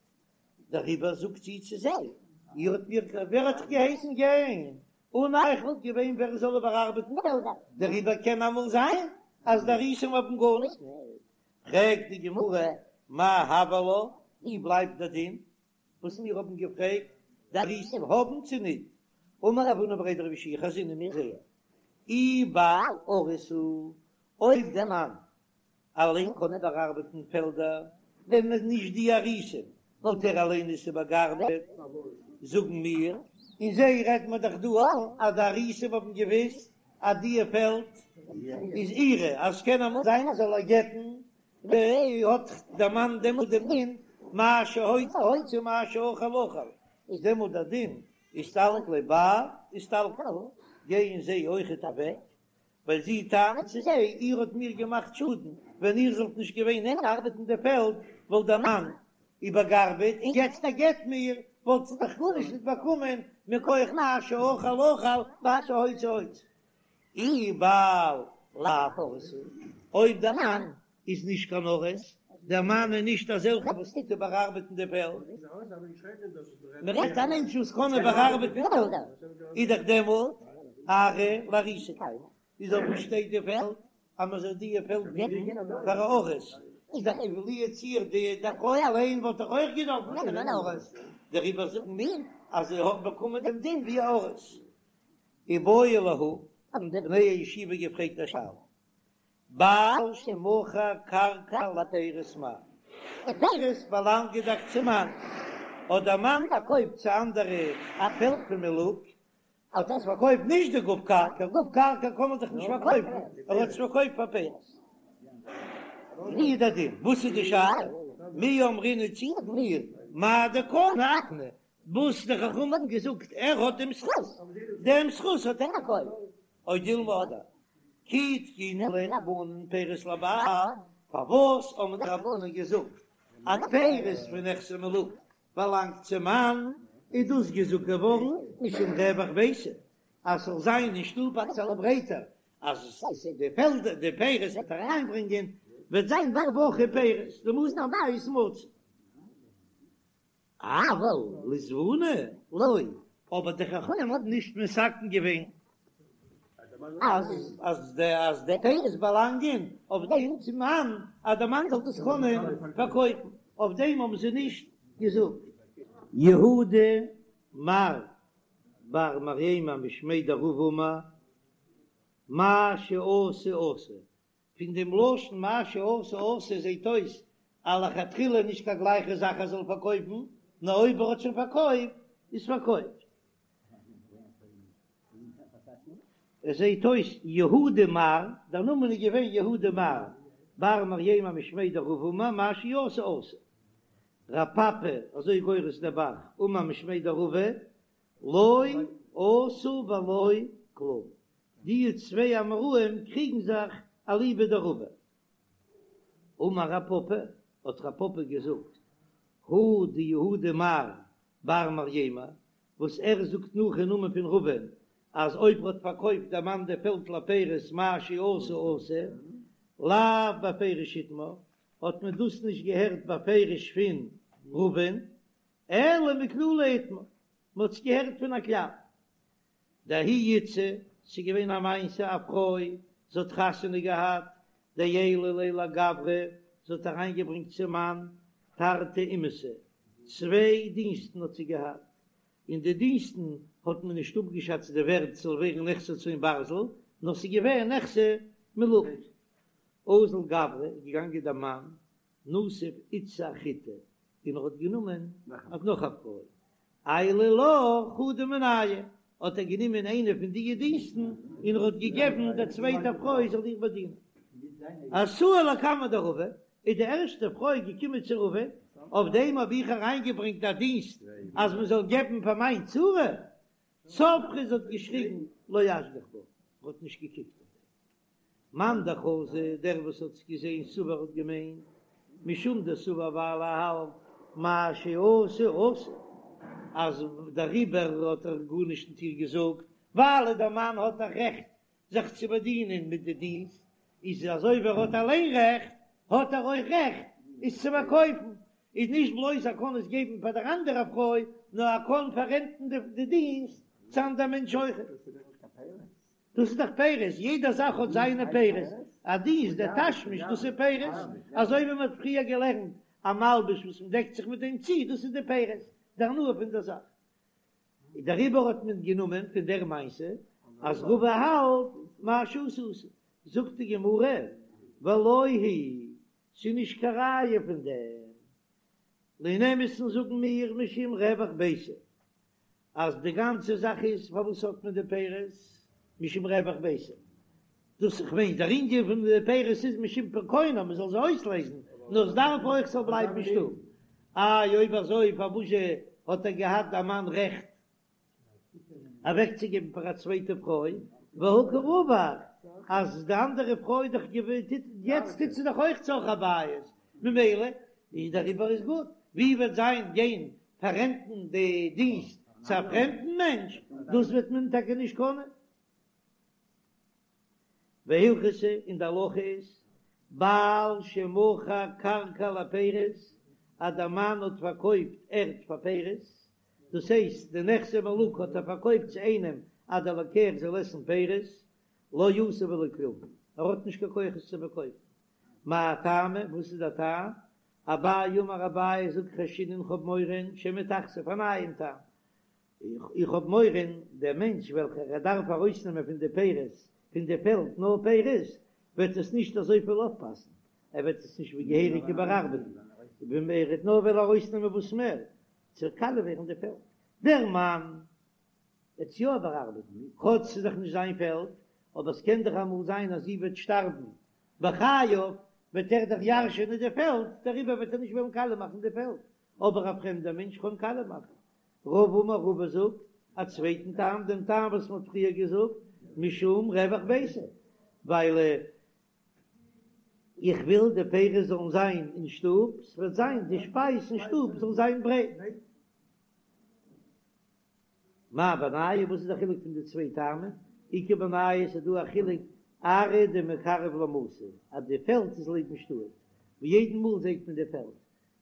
דעריבער זאגט זי צו זיי, איר האט מיר, ווער האט אייך געהייסן גיין? אן אייך וואלט געווען ווער עס זאל איבערארבעטן פעלדער, דעריבער קען אמאל זיין אז די אריסים האבן גארנישט. פרעגט די גמרא, מאי הוי עלה, ווי בלייבט דער דין וואס מיר האבן געפרעגט, די אריסים האבן צו ניט? אמר רב הונא בריה דרב יהושע חזינא מיר זעען אי בעל אריס הוא, אויב דער מאן אליין קען איבערארבעטן פעלדער, ווען נישט די אריסים וואלט ער אליין עס איבערגעארבעט, זאגן מיר, און זיי רעדט מען דאך דא אז די אריסים האבן געוויסט אז די פעלד איז אירע, אז ס'קען אמאל זיין אז זאל ער גט'ן, האט דער מאן דעמאלט דעם דין מה שהוציא הוציא מה שאכל אכל, איז דעמאלט דער דין אסתלק ליה בעל אסתלקי, גייען זיי אויכעט אוועק, ווייל זי טענה'ט צו זיי, איר האט מיר געמאכט שאדן, ווען איר זאלט נישט געווען ארבעטן די פעלד, וואלט דער מאן איבערגארבעט, און יעצט ער גט מיר, וואלט זי דאך גארנישט נישט באקומען מכח מה שאכל אכל מה שהוציא הוציא. אי בעל לאו אריס הוא, אויב דער מאן איז נישט קיין אריס, דער מאן איז נישט אזעלכע וואס טוט איבערארבעטן די פעלד, מען רעדט א מענטש וואס קען איבערארבעטן פעלדער, איז דאך דעמאלט ארעא לאריסי קיימא, איז אויף וואס שטייט די פעלד אז מען זאל די פעלד געבן פאר א אריס, איז דאך לו יצוייר די פרוי אליין וואלט דאך אויך געדארפט נעמען אן אריס, דעריבער זאגן מיר אז זי האט באקומען דעם דין ווי א אריס. איבעיא להו, האבן די בני הישיבה געפרעגט א שאלה, בעל שמכר קרקע לפירות מהו, די פירות באלאנגען דאך צום מאן, האט דער מאן פארקויפט צו אנדערע א פעלד פון מלוג, האט עס פארקויפט נישט די גוף קרקע, גוף קרקע קען מען דאך נישט פארקויפן, ער האט עס פארקויפט פאר פירות. ווי איז דער דין? וואס איז די שאלה? מי אמרינן צי זאגן מיר מאי דקני אקני, וואס די חכמים האבן געזאגט ער האט דעם זכות, דעם זכות האט ער פארקויפט, או דילמא אדער כי תקינו ליה רבנן פירות לבעל, פארוואס האבן די רבנן געזאגט אז פירות פון נכסי מלוג באלאנגט צום מאן, איז דאס געזאגט געווארן משום רווח ביתא, אז ס'זאל זיין אין שטוב אביסעלע ברייטער, אז די פעלדער די פירות וועט אריינברענגען וועט זיין ברווחה פירות, דמזון הבית מצוי. אבל לזבוני לא, אבער די חכמים האבן נישט מתקן געווען אז אז די אז די פירות באלאנגען אויף דעם צום מאן, אז דער מאן זאל דאס קענען פארקויפן, אויף דעם האבן זיי נישט געזאגט. יהודה מר בר מרימר משמיה דרבא אמר, מה שעשה עשוי, פון דעם לשון מה שעשה עשוי זעט אויס. א לכתחילה נישט קיין גלייכע זאך ער זאל פארקויפן, נאר אויב ער האט שוין פארקויפט איז פארקויפט. עס זעהט אויס יהודה מר, דער נאמען איז געווען יהודה מר, בר מרימר משמיה דרבא אמר מה שעשה עשוי. רב פפא, אזוי גורס דער ב"ח, אמר משמיה דרבא, לא עשה ולא כלום. די צוויי אמוראים קריגן זיך אליבא דרבא. אמר רב פפא, האט רב פפא געזאגט, הא דיהודה מר בר מרימר, וואס ער זאגט נאך אין נאמען פון רבא'ן אז אויב ר'האט פארקויפט דער מאן די פעלד לפירות מה שעשה עשוי, לאו בפירוש איתמר, האט מען דאס נישט געהערט בפירוש פון רבא'ן, אלא מכללא איתמר, מ'האט עס געהערט פון א כלל. דההיא איתתא, ס'איז געווען א מעשה א פרוי, זי האט חתונה געהאט, דעיילה ליה לגברא, זי האט אריינגעברענגט צום מאן תרתי אמהתא, צוויי דינסטן האט זי געהאט, און די דינסטן האט מען נישט אפגעשאצט די ווערט ס'זאל ווערן נכסי צאן ברזל, נאר ס'איז געווען נכסי מלוג. אזל גברא איז געגאנגען דער מאן, נסיב איתתא אחריתי, און ער האט גענומען נאך א פרוי, עייליה לה חדא מינייהו, האט ער גענומען איינע פון די דינסטן און ער האט געגעבן דער צווייטער פרוי זאל איר באדינען. אתאי לקמיה דרבא, איז די ערשטע פרוי געקומען צו רבא, אויף דעם האב איך אריינגעברענגט א דינסט אז מען זאל געבן פאר מיין צרה, צווחה, זי האט געשריגן לא אשגח בה, ער האט נישט געקוקט אויף דעם. מאן דחזא, דער וואס האט עס געזען סבר האט געמיינט, משום דסבר ווייל ער האלט מה שעשה עשוי, אז דעריבער האט ער גארנישט ניט איר געזאגט, ווייל דער מאן האט א רעכט זיך צו באדינען מיט די דינסט, איז אזוי ווי ער האט אליין רעכט, האט ער אויך רעכט עס צו פארקויפן, איז נישט בלויז ער קען עס געבן פאר דער אנדערע פרוי, נאר ער קען פאררענטן די דינסט צו אנדער מענטש אויכעט. דאס איז דאך פירות, יעדע זאך האט זיינע פירות, א דינסט, דער תשמיש, דאס איז פירות, אזוי ווי מען האט פריער געלערנט, א מלבוש וואס מען דעקט זיך מיט דעם צו, דאס איז די פירות, די הנאה פון דער זאך. דעריבער האט מען גענומען פון דער מעשה אז רבא האלט מה שעשה עשוי, זאגט די גמרא, ולא היא, ס'איז נישט קיין ראיה פון דעם, אין אמת'ן זאגן מיר משום רווח ביתא, אז די גאנצע זאך איז פארוואס האט מען די פירות משום רווח ביתא, דאס איך מיין דער ענין פון די פירות איז משום פירקונה מען זאל זיי אויסלייזן, נאר עס דארף אויך ס'זאל בלייבן אין שטוב, איי אויב אזוי פארוואזשע האט ער געהאט דער מאן רעכט אוועקצוגעבן פאר א צווייטע פרוי, והא קא רווח אז די אנדערע פרוי דאך יעצט טוט זי דאך אויך צרכי בית, ממילא איז דעריבער איז גוט, ווי וועט זיין גיין פאררענטן די דינסט צו א פרעמדן מענטש, דאס וועט מען טאקע נישט קענען. והלכתא און די הלכה איז, בעל שמכר קרקע לפירות, אז דער מאן האט פארקויפט ערד פאר פירות, דאס הייסט די נכסי מלוג האט ער פארקויפט צו איינעם אז דער לוקח זאל עסן פירות, לא עשה ולא כלום, ער האט נישט קיין כח עס צו פארקויפן. מאי טעמא, וואס איז דער טעם? אביי אמר אביי זאגט חיישינן איך האב מורא שמא תכסיף א נייעם טעם, איך האב מורא דער מענטש וועלכער ער דארף ארויסנעמען פון די פירות פון די פעלד נאר פירות וועט עס נישט אזויפיל אויפפאסן, ער וועט עס נישט ווי געהעריג איבערארבעטן, ווען ער וועט נאר וועלן ארויסנעמען וואס מער ס'וועט קאליע ווערן די פעלד, דער מאן וועט עס יא איבערארבעטן כאטש ס'איז דאך נישט זיין פעלד, אבער ס'קען דאך אמאל זיין אז זי וועט שטארבן בחייו וועט ער דאך ירש'ענען די פעלד, דעריבער וועט ער נישט וועלן קאליע מאכן די פעלד, אבער א פרעמדער מענטש קען קאליע מאכן. רבא אמר רבא זאגט א צווייטן טעם, דעם טעם וואס מען האט פריער געזאגט, משום רווח ביתא, ווייל איך וויל די פירות זאלן זיין אין שטוב, ס'וועט זיין די שפייז אין שטוב זאל זיין ברייט. מאי בינייהו, וואס איז די חילוק פון די צוויי טעמים? איכא בינייהו ס'איז דא א חילוק ארעא דמיקרב למתא אז די פעלד איז לעבן שטאט, ווי יעדן מאל זעט מען די פעלד,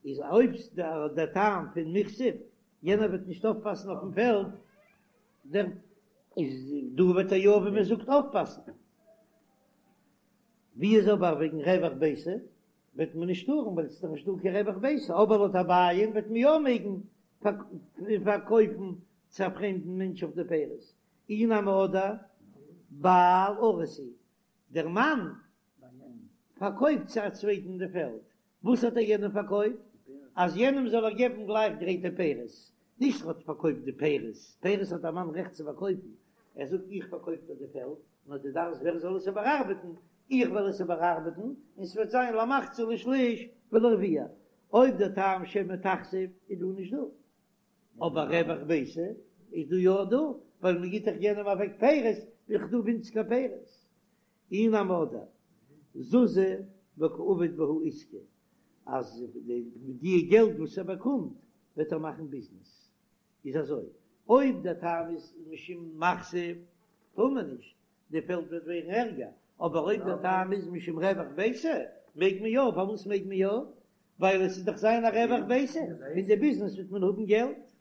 איז אויב דער טעם פון מיכסיף, יענער וועט נישט אויפפאסן אויפן פעלד, דער איז דא וועט ער יא ווי מען זאגט אויפפאסן. ווי איז אבער וועגן רווח ביתא וועט מען נישט טארן ווייל עס איז דאך נישט דא קיין רווח ביתא, אבער לויט אביי'ן וועט מען יא מעגן פארקויפן צו א פרעמדן מענטש אויף די פירות, אי נמי אדער בעל אריס הוא, דער מאן פארקויפט צו א צווייטן די פעלד, וואס האט ער יענעם פארקויפט? אז יענעם זאל ער געבן גלייך גרייטע פירות, נישט ער האט פארקויפט די פירות, פירות האט א מאן רעכט צו פארקויפן, ער זאגט איך פארקויף דיר די פעלד, נאר דו דארפסט ווער זאל עס איבערארבעטן, איך וועל עס איבערארבעטן, און ס'וועט זיין למחצה לשליש ולרביע, אויב דער טעם שמא תכסיף איז דא נישט דא, אבער רווח ביתא איז דא יא דא, ווייל מ'גיט דאך יענעם אוועק פירות, איז דאך דא ווינציגער פירות. אי נמי אדער זוזי וקא עביד בהו עיסקא, אז מיט די געלט וואס ער באקומט וועט ער מאכן ביזנעס, איז אזוי, אויב דער טעם איז משום מכסיף טאר מען נישט, די פעלד וועט ווערן ערגער, אבער אויב דער טעם איז משום רווח ביתא מעג מען יא, פארוואס מעג מען יא? ווייל עס איז דאך זיין א רווח ביתא, פון די ביזנעס וועט מען האבן געלט.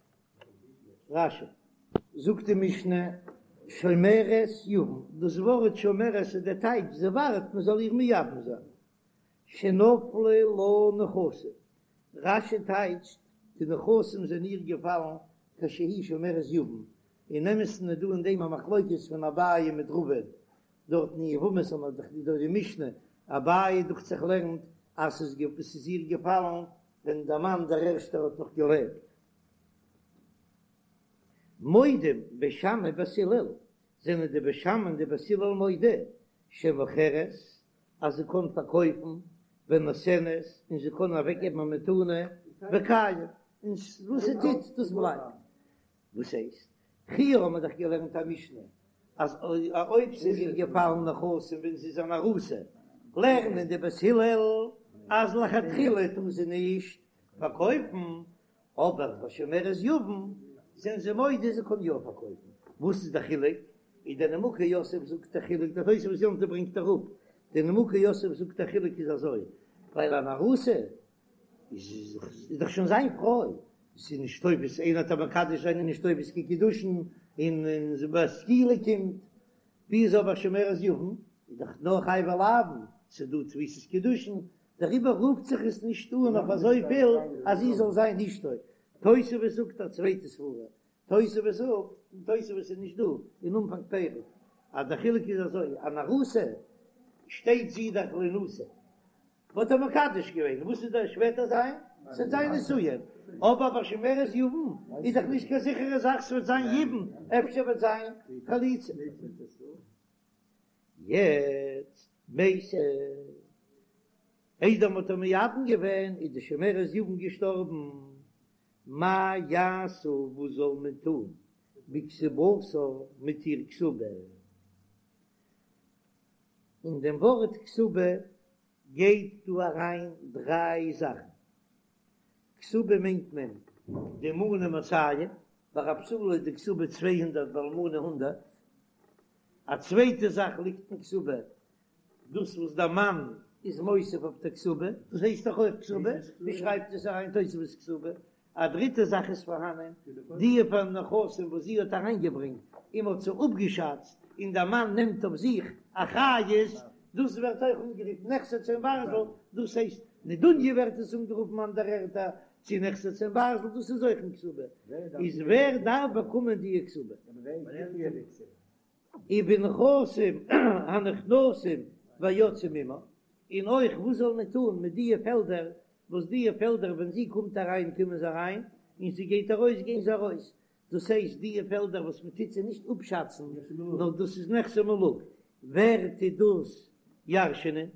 רש"י. זאגט די משנה, שומרת יבם, דאס ווארט שומרת איז דער טייטש, זי ווארט מען זאל איר מייבם זיין, שנפלו לה נכסים, רש"י טייטשט, די נכסים זענען איר געפאלן כשהיא שומרת יבם, אין אמת'ן איז דא אין דעם א מחלוקת פון אביי מיט רבא, דארט אין יבמות האט מען דאך דא די משנה, אביי דוכט זיך לערנט אז ס'איז איר געפאלן ווען דער מאן דער ערשטער האט נאך געלעבט. מודים בית שמאי ובית הלל, זענען די בית שמאי און די בית הלל מודה שמוכרת אז זי קען פארקויפן ונותנת און זי קען אוועקגעבן א מתנה וקיים, און וואס זי טוט דאס בלייבט. וואס הייסט? פריער האבן מיר דאך געלערנט א משנה אז אויב ס'איז איר געפאלן נכסים ווען זי איז אן ארוסה, לערנען די בית הלל אז לכתחילה טאר זי נישט פארקויפן, אבער ביי שומרת יבם זענען זיי מודה זי קען יא פארקויפן. וואס איז די חילוק? איז דער נימוקי יוסף זאגט די חילוק, דער תוספות יום טוב ברענגט אראפ, דער נימוקי יוסף זאגט די חילוק איז אזוי, ווייל אן ארוסה איז דאך שוין זיין פרוי, ס'איז נישט תופס, איינער וועט איר מקדש זיין איז נישט תופס קיין קידושין, און ביי סקילה קומט, ווי איז אבער שומרת יבם, איז דאך נאר חייבי לאוין, ס'איז דא תפיסת קידושין, דעריבער רופט זיך עס נישט אן אויף אזויפיל אז זי זאל זיין אשתו. תוספות זאגט א צווייטע סברא, תוספות זאגט, און תוספות איז נישט דא אין אנפאנג פרק, אז דער חילוק איז אזוי, אן ארוסה שטייט זי דאך להנשא, מ'האט איר מקדש געווען, וואס איז דער שפעטער זיין? ס'וועט זיין נישואין, אבער ביי שומרת יבם איז דאך נישט קיין זיכערע זאך ס'וועט זיין יבום, אפשר וועט זיין חליצה. יעצט מתה, איידער מ'האט איר מייבם געווען איז די שומרת יבם געשטארבן, מה יעשו וואס זאל מען טון בכתובתה מיט איר כתובה? אין דעם ווארט כתובה גייט דא אריין דריי זאכן, כתובה מיינט מען די מנה מאתים, ביי א בתולה איז די כתובה 200 ביי אלמנה הונדערט, א צווייטע זאך ליגט אין כתובה, דאס וואס דער מאן איז מוסיף אויף די כתובה, דאס הייסט דאך אויך כתובה, ווי שרייבט עס אריין תוספות כתובה? א דריטע זאך איז פארהאנען, די פאר נכסים וואס זי האט אריינגעברענגט און מ'האט זיי אפגעשאצט, און דער מאן נעמט אויף זיך אחריות, דאס ווערט אויך אנגערופן נכסי צאן ברזל, דאס הייסט נדוניה ווערט עס אנגערופן אנדערע ערטער, צו נכסי צאן ברזל, דאס איז אויך אין כתובה, איז ווער דארף באקומען די כתובה? ובנכסים הנכנסים והיוצאים עמה, און אויך וואס זאל מען טון מיט דיע פעלדער, וואס דיע פעלדער ווען זי קומט אריין קומען זיי אריין, און זי גייט ארויס גייען זיי ארויס, דאס הייסט דיע פעלדער וואס מען טוט זיי נישט אפשאצן, נאר דאס איז נכסי מלוג, ווער טוט דאס ירש'נען?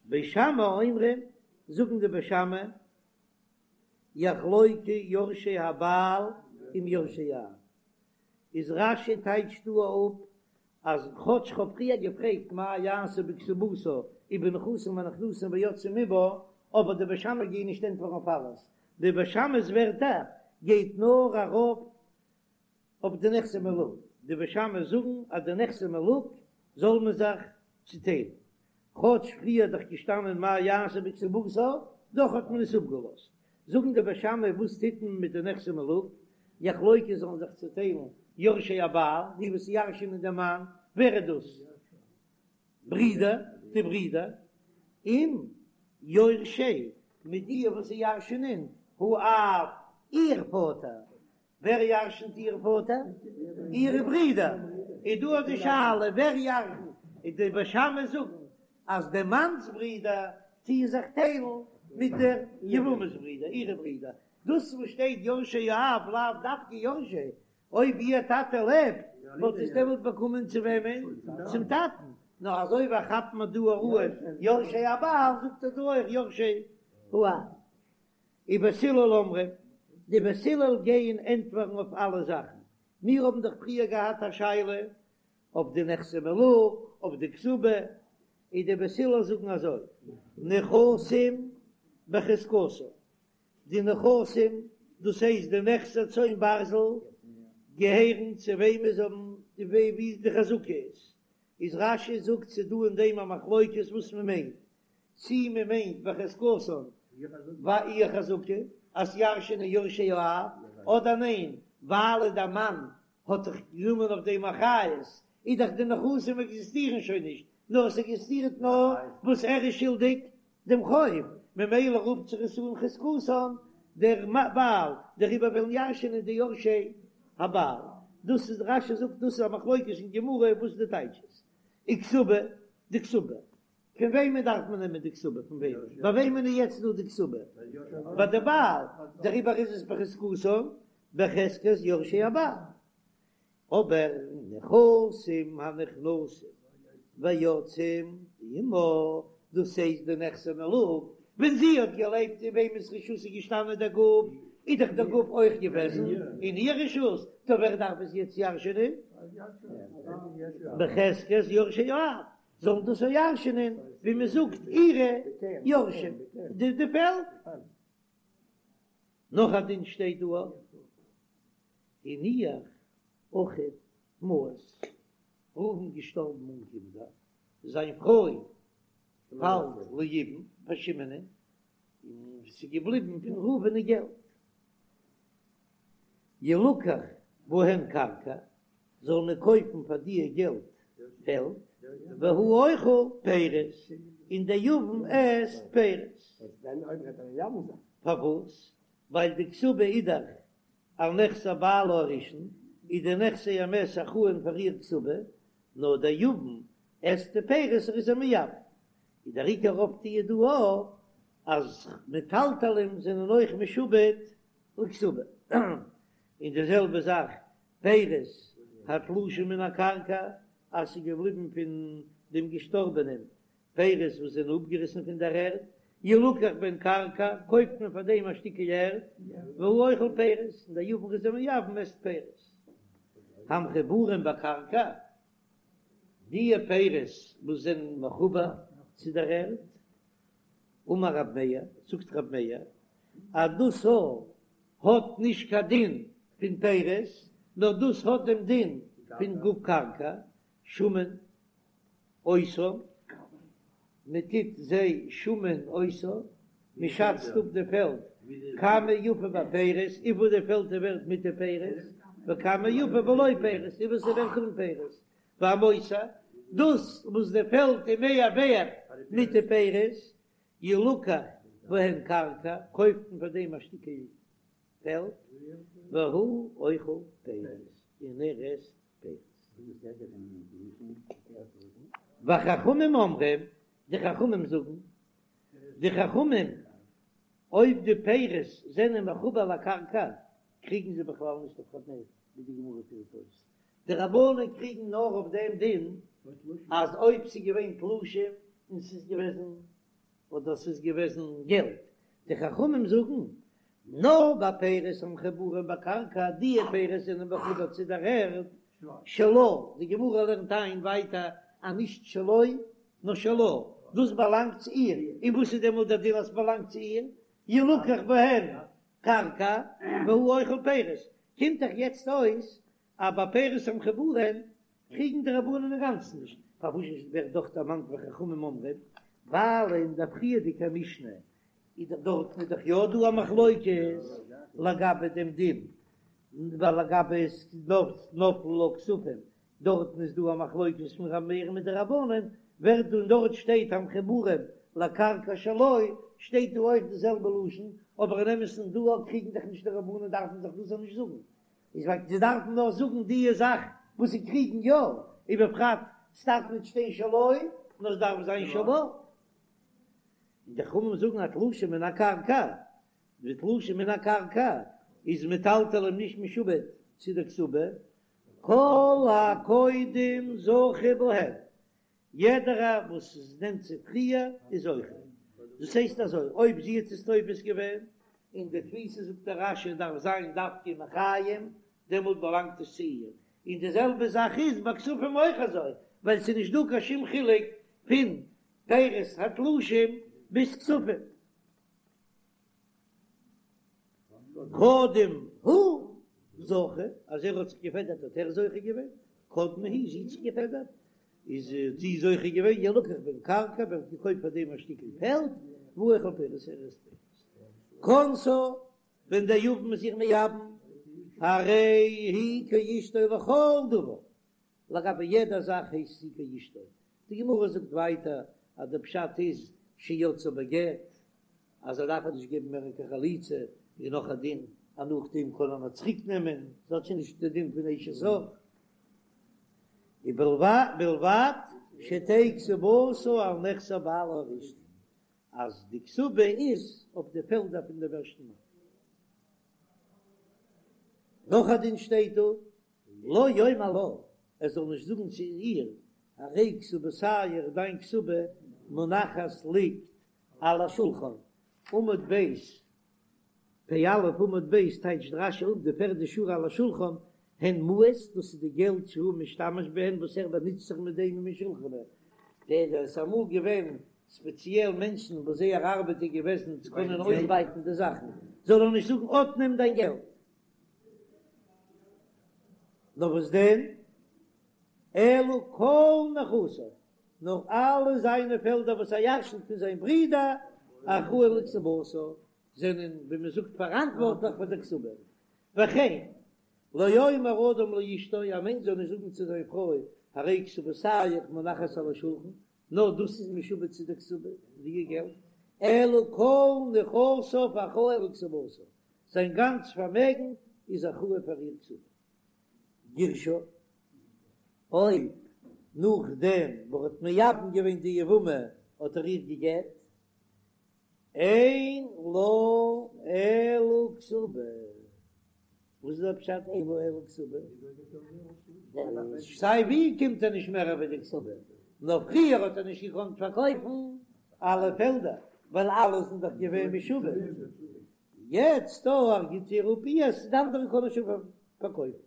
בית שמאי אומרים, זאגן די בית שמאי, יחלוקו יורשי הבעל עם יורשי האב. איז רש"י טייטשט דא אפ אז כאטש כ'האב פריער געפרעגט מה יעשה בכתובתה ובנכסים הנכנסים ויוצאים עמה, אבער די בית שמאי גייען נישט ענטפערן אויף אלעס, די בית שמאי'ס ווערטער גייט נאר ארויף אויף די נכסי מלוג, די בית שמאי זאגן אז די נכסי מלוג זאל מען זיך צוטיילן, כאטש פריער איז דאך געשטאנען מה יעשה בכתובתה, דאך האט מען עס אפגעלאזט. זאגן די בית שמאי וואס טוט מען מיט די נכסי מלוג, יחלוקו זאלן זיך צוטיילן יורשי הבעל, די וואס ירש'ענען דעם מאן, ווער איז דאס? ברידער, די ברידער, עם יורשי, מיט די וואס ירש'ענען, האב, איר פאטער, ווער ירשנט איר פאטער? אירע ברידער. איז דא די שאלה ווער ירשנט, איז די בית שמאי זאגן אז די מאנ'ס ברידער. טוען זיך טיילן מיט דער יבמה'ס ברידער, אירע ברידער. דאס וואס שטייט יורשי האב לאו דווקא יורשי, אויב איר טאטע לעבט וואלט עס דעמאלט באקומען צו וועמען? צום טאטן. נאר אזוי ווי כאפט מען דא אן יורשי הבעל זאגט ער דא אויך יורשי האב. ובית הלל אומרים, די בית הלל גייען ענטפערן אויף אלע זאכן. מיר האבן דאך פריער געהאט א שאלה אויף די נכסי מלוג, אויף די כתובה, און די בית הלל זאגן אזוי, נכסים בחזקתן, די נכסים, דאס הייסט די נכסי צאן ברזל, געהערן צו וועמען זיי האבן, ווי די חזקה איז, איז רש"י זאגט ס'איז דא אין דעם א מחלוקת וואס מען מיינט, צי מען מיינט בחזקתן ביי איר חזקה אז ירש'ענען יורשי האב, אדער ניין ווייל דער מאן האט דאך גענומען אויף דעם אחריות, איז דאך די נכסים עקזיסטירן שוין נישט, נאר עס עקזיסטירט נאר וואס ער איז שולדיג דעם חוב, ממילא רופט זיך עס אן חזקתן דער בעל, דעריבער וועלן ירש'ענען די יורשי הבעל. דאס איז רש"י זאגט דאס איז א מחלוקת אין גמרא וואס די טייטש איז. וכתובה, די כתובה. פון וועמען דארף מען נעמען די כתובה? פון וועמען? ביי וועמען איז יעצט דא די כתובה? ביי די בעל, דעריבער איז עס בחזקתן, בחזקת יורשי הבעל. אבער נכסים הנכנסים ויוצאים עמה, דאס הייסט די נכסי מלוג, ווען זי האט געלעבט אין וועמענס רשות איז געשטאנען דער גוף, איז דאך דער גוף אויך געוועזן אין איר רשות, טא ווער דארף עס יעצט ירש'ענען? בחזקת יורשי האב, זאלן דאס אויך ירש'ענען ווי מען זאגט אירע יורשים, די פעלד. נאך א דין שטייט דא אויך, הניח אחיו מעות, ראובן געשטארבן אן קינדער, זיין פרוי פאלט ליבום פאר שמעונ'ען, און ס'איז געבליבן פון ראובן'ען געלט. ילקח בהן קרקע, זאל מען קויפן פאר דיע געלט פעלד, והוא אוכל פירות, און דער יבם עסט פירות. פארוואס? ווייל די כתובה איז דאך על נכסי בעלה הראשון, איז די נכסי המת אחראין פאר איר כתובה, נאר דער יבם עסט די פירות ער איז איר מייבם. איז דער עיקר אויפטו דא אויך אז מטלטלים זענען אויך משועבד לכתובה. און די זעלבע זאך פירות התלושים מן הקרקע, אז ס'איז געבליבן פון דעם געשטארבענעם פירות וואס זענען אפגעריסן פון דער ערד, ילקח בהן קרקע, קויפט מען פאר דעם א שטיקל ערד, והוא אוכל פירות, און דער יבם איז איר מייבם עסט פירות. המחוברים בקרקע, דיע פירות וואס זענען מחובר צו דער ערד, אמר רב מאיר, זאגט רב מאיר, אז דאס האט נישט קיין דין פון פירות, נאר דאס האט דעם דין פון גוף קרקע, שמין אותן, מען טוט זיי שמין אותן, מען שאצט אפ די פעלד, כמה יפה בפירות, וויפיל די פעלד איז ווערט מיט די פירות, וכמה יפה בלא פירות, וויפיל ס'איז ווערט אן פירות, והמותר, דאס וואס די פעלד איז מער ווערט מיט די פירות, ילקח בהן קרקע, קויפט מען פאר דעם א שטיקל פעלד, והוא אוכל פירות, און ער עסט פירות. וחכמים אומרים, די חכמים זאגן, די חכמים, אויב די פירות זענען מחובר לקרקע, קריגן זיי בכלל נישט אויף ר' מאיר, ווי די גמרא פירט אויס, די רבנן קריגן נאר אויף דעם דין אז אויב ס'איז געווען תלושים און ס'איז געוועזן אדער ס'איז געוועזן געלט, די חכמים זאגן נאר ביי פירות המחוברים בקרקע, די פירות זענען מחובר צו דער ערד, שלה, די גמרא לערנט איין ווייטער אז נישט שלו נאר שלה, דאס באלאנגט צו איר, און וואס איז דעמאלט דער דין אז ס'באלאנגט צו איר, ילקח בהן קרקע והוא אוכל פירות, קומט דאך יעצט אויס אז ביי פירות המחוברים קריגן די רבנן אינגאנצן נישט, פארוואס ווערט דאך דערמאנט וחכמים אומרים, ווייל אין דער פריערדיגער משנה איז דאך דארטן איז דאך יא דא א מחלוקת לגבי דעם דין, ווייל לגבי נפלו לה כספים דארטן איז דא א מחלוקת פון ר' מאיר מיט די רבנן, ווערט דא און דארט שטייט המחוברים לקרקע שלו, שטייט דא אויך די זעלבע לשון, אבער אין אמת'ן דא קריגן דאך נישט די רבנן דארפן זיך דאס נישט זאגן, איז ווייל זיי דארפן נאר זאגן די זאך וואס זיי קריגן יא, ובפרט ס'דארף נישט שטיין שלו, נאר ס'דארף זיין שלה. און די חכמים זאגן אז תלושים מן הקרקע, די תלושים מן הקרקע איז מטלטלים נישט משועבד צו די כתובה, כל הקודם זוכה בהם, יעדערער וואס עס נעמט צו פריער איז זוכה. דאס הייסט אזוי, אויב זי האט עס תופס געווען, און די תפיסה זאגט דער רש"י דארף זיין דווקא מחיים, דעמאלט באלאנגט עס צו איר. און די זעלבע זאך איז ביי כספים אויך אזוי, ווייל ס'איז נישט דא קיין שום חילוק פון פירות התלושים ביז כספים. קדם הוא זכה, אז ער האט זיך געפעדערט האט ער זוכה געווען, קדמה היא, זי האט זיך געפעדערט איז זי זוכה געווען, ילקח בהן קרקע, ווערט געקויפט פאר דעם א שטיקל פעלד, והוא אוכל פירות, ער עסט פירות. כנסה, ווען דער יבם איז איר מייבם, הרי היא כאשתו לכל דבר, לגבי יעדע זאך הייסט זי כאשתו, די גמרא זאגט ווייטער אז די פשט איז שיצאה בגט, אז ער דארף איר נישט געבן מער קיין חליצה, און נאך א דין אז נאכדעם קען ער נאר צוריק נעמען, זי האט שוין נישט די דין פון אשת אח, ובלבד שתהא כתובתה על נכסי בעלה הראשון, אז די כתובה איז אויף די פעלדער פון דעם ערשטן מאן. נאך א דין שטייט דא, לא יאמר לה, ער זאל נישט זאגן צו איר, הרי כתובתיך, דיין כתובה מונחת ליגט על השולחן, עמוד ב', פ"א עמוד ב' טייטשט רש"י אפ די פערדע שורה על השולחן, הן מעות, דאס איז די געלט שהוא משתמש בהן וואס ער באנוצט זיך מיט דעם ומשולחנו, דער עס איז אמאל געווען ספעציעל מענטשן וואס זייער ארבעט איז געוועזן צו קענען אויסבייטן די זאכן, זאל ער נישט זאגן אט נעם דיין געלט. נאר וואס דען? אלא כל נכסיו, נאר אלע זיינע פעלדער וואס ער ירשנט פון זיין ברודער, אחראין לכתובתה, זענען ווי מען זאגט פאראנטווארטליך פאר דער כתובה. וכן, לא יאמר אדם לאשתו, א מענטש זאל נישט זאגן צו זיין פרוי, הרי כתובתיך מונחת על השולחן, נאר דאס איז משועבד צו דער כתובה, די געלט, אלא כל נכסיו אחראין לכתובתה, זיין גאנץ פארמעגן איז אחראי פאר איר כתובה. גירשה, אויב נאכדעם וואס ער האט מייבם געווען די יבמה האט ער איר גע'גט, אין לה אלא כתובה. וואס איז דער פשט אין לה אלא כתובה? סיי ווי קומט ער נישט מער ווי די כתובה, נאר פריער האט ער נישט געקאנט פארקויפן אלע פעלדער ווייל אלע זענען דאך געווען משועבד, יעצט דא ער גיט איר אפ אירס, די אנדערע קען ער שוין פארקויפן.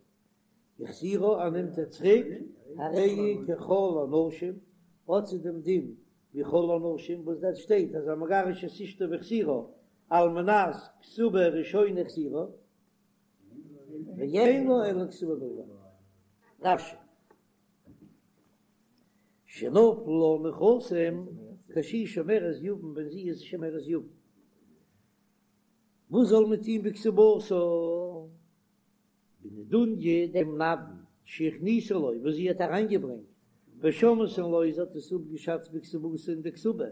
החזירה ער נעמט איר צוריק, הרי היא ככל הנשים, האט זי דעם דין ווי כל הנשים, וואס דארט שטייט אז המגרש את אשתו והחזירה על מנת כתובה ראשונה החזירה, ואין לה אלא כתובה בלבד. רש"י. שנפלו לה נכסים כשהיא שומרת יבם ווען זי איז שומרת יבם. וואס זאל מען טון בכתובתה? בנדוניא דעם נדן שהכניסה לו וואס זי האט אריינגעברענגט, ושמתן לו זי האט עס אפגעשאצט בכתובתה אין די כתובה,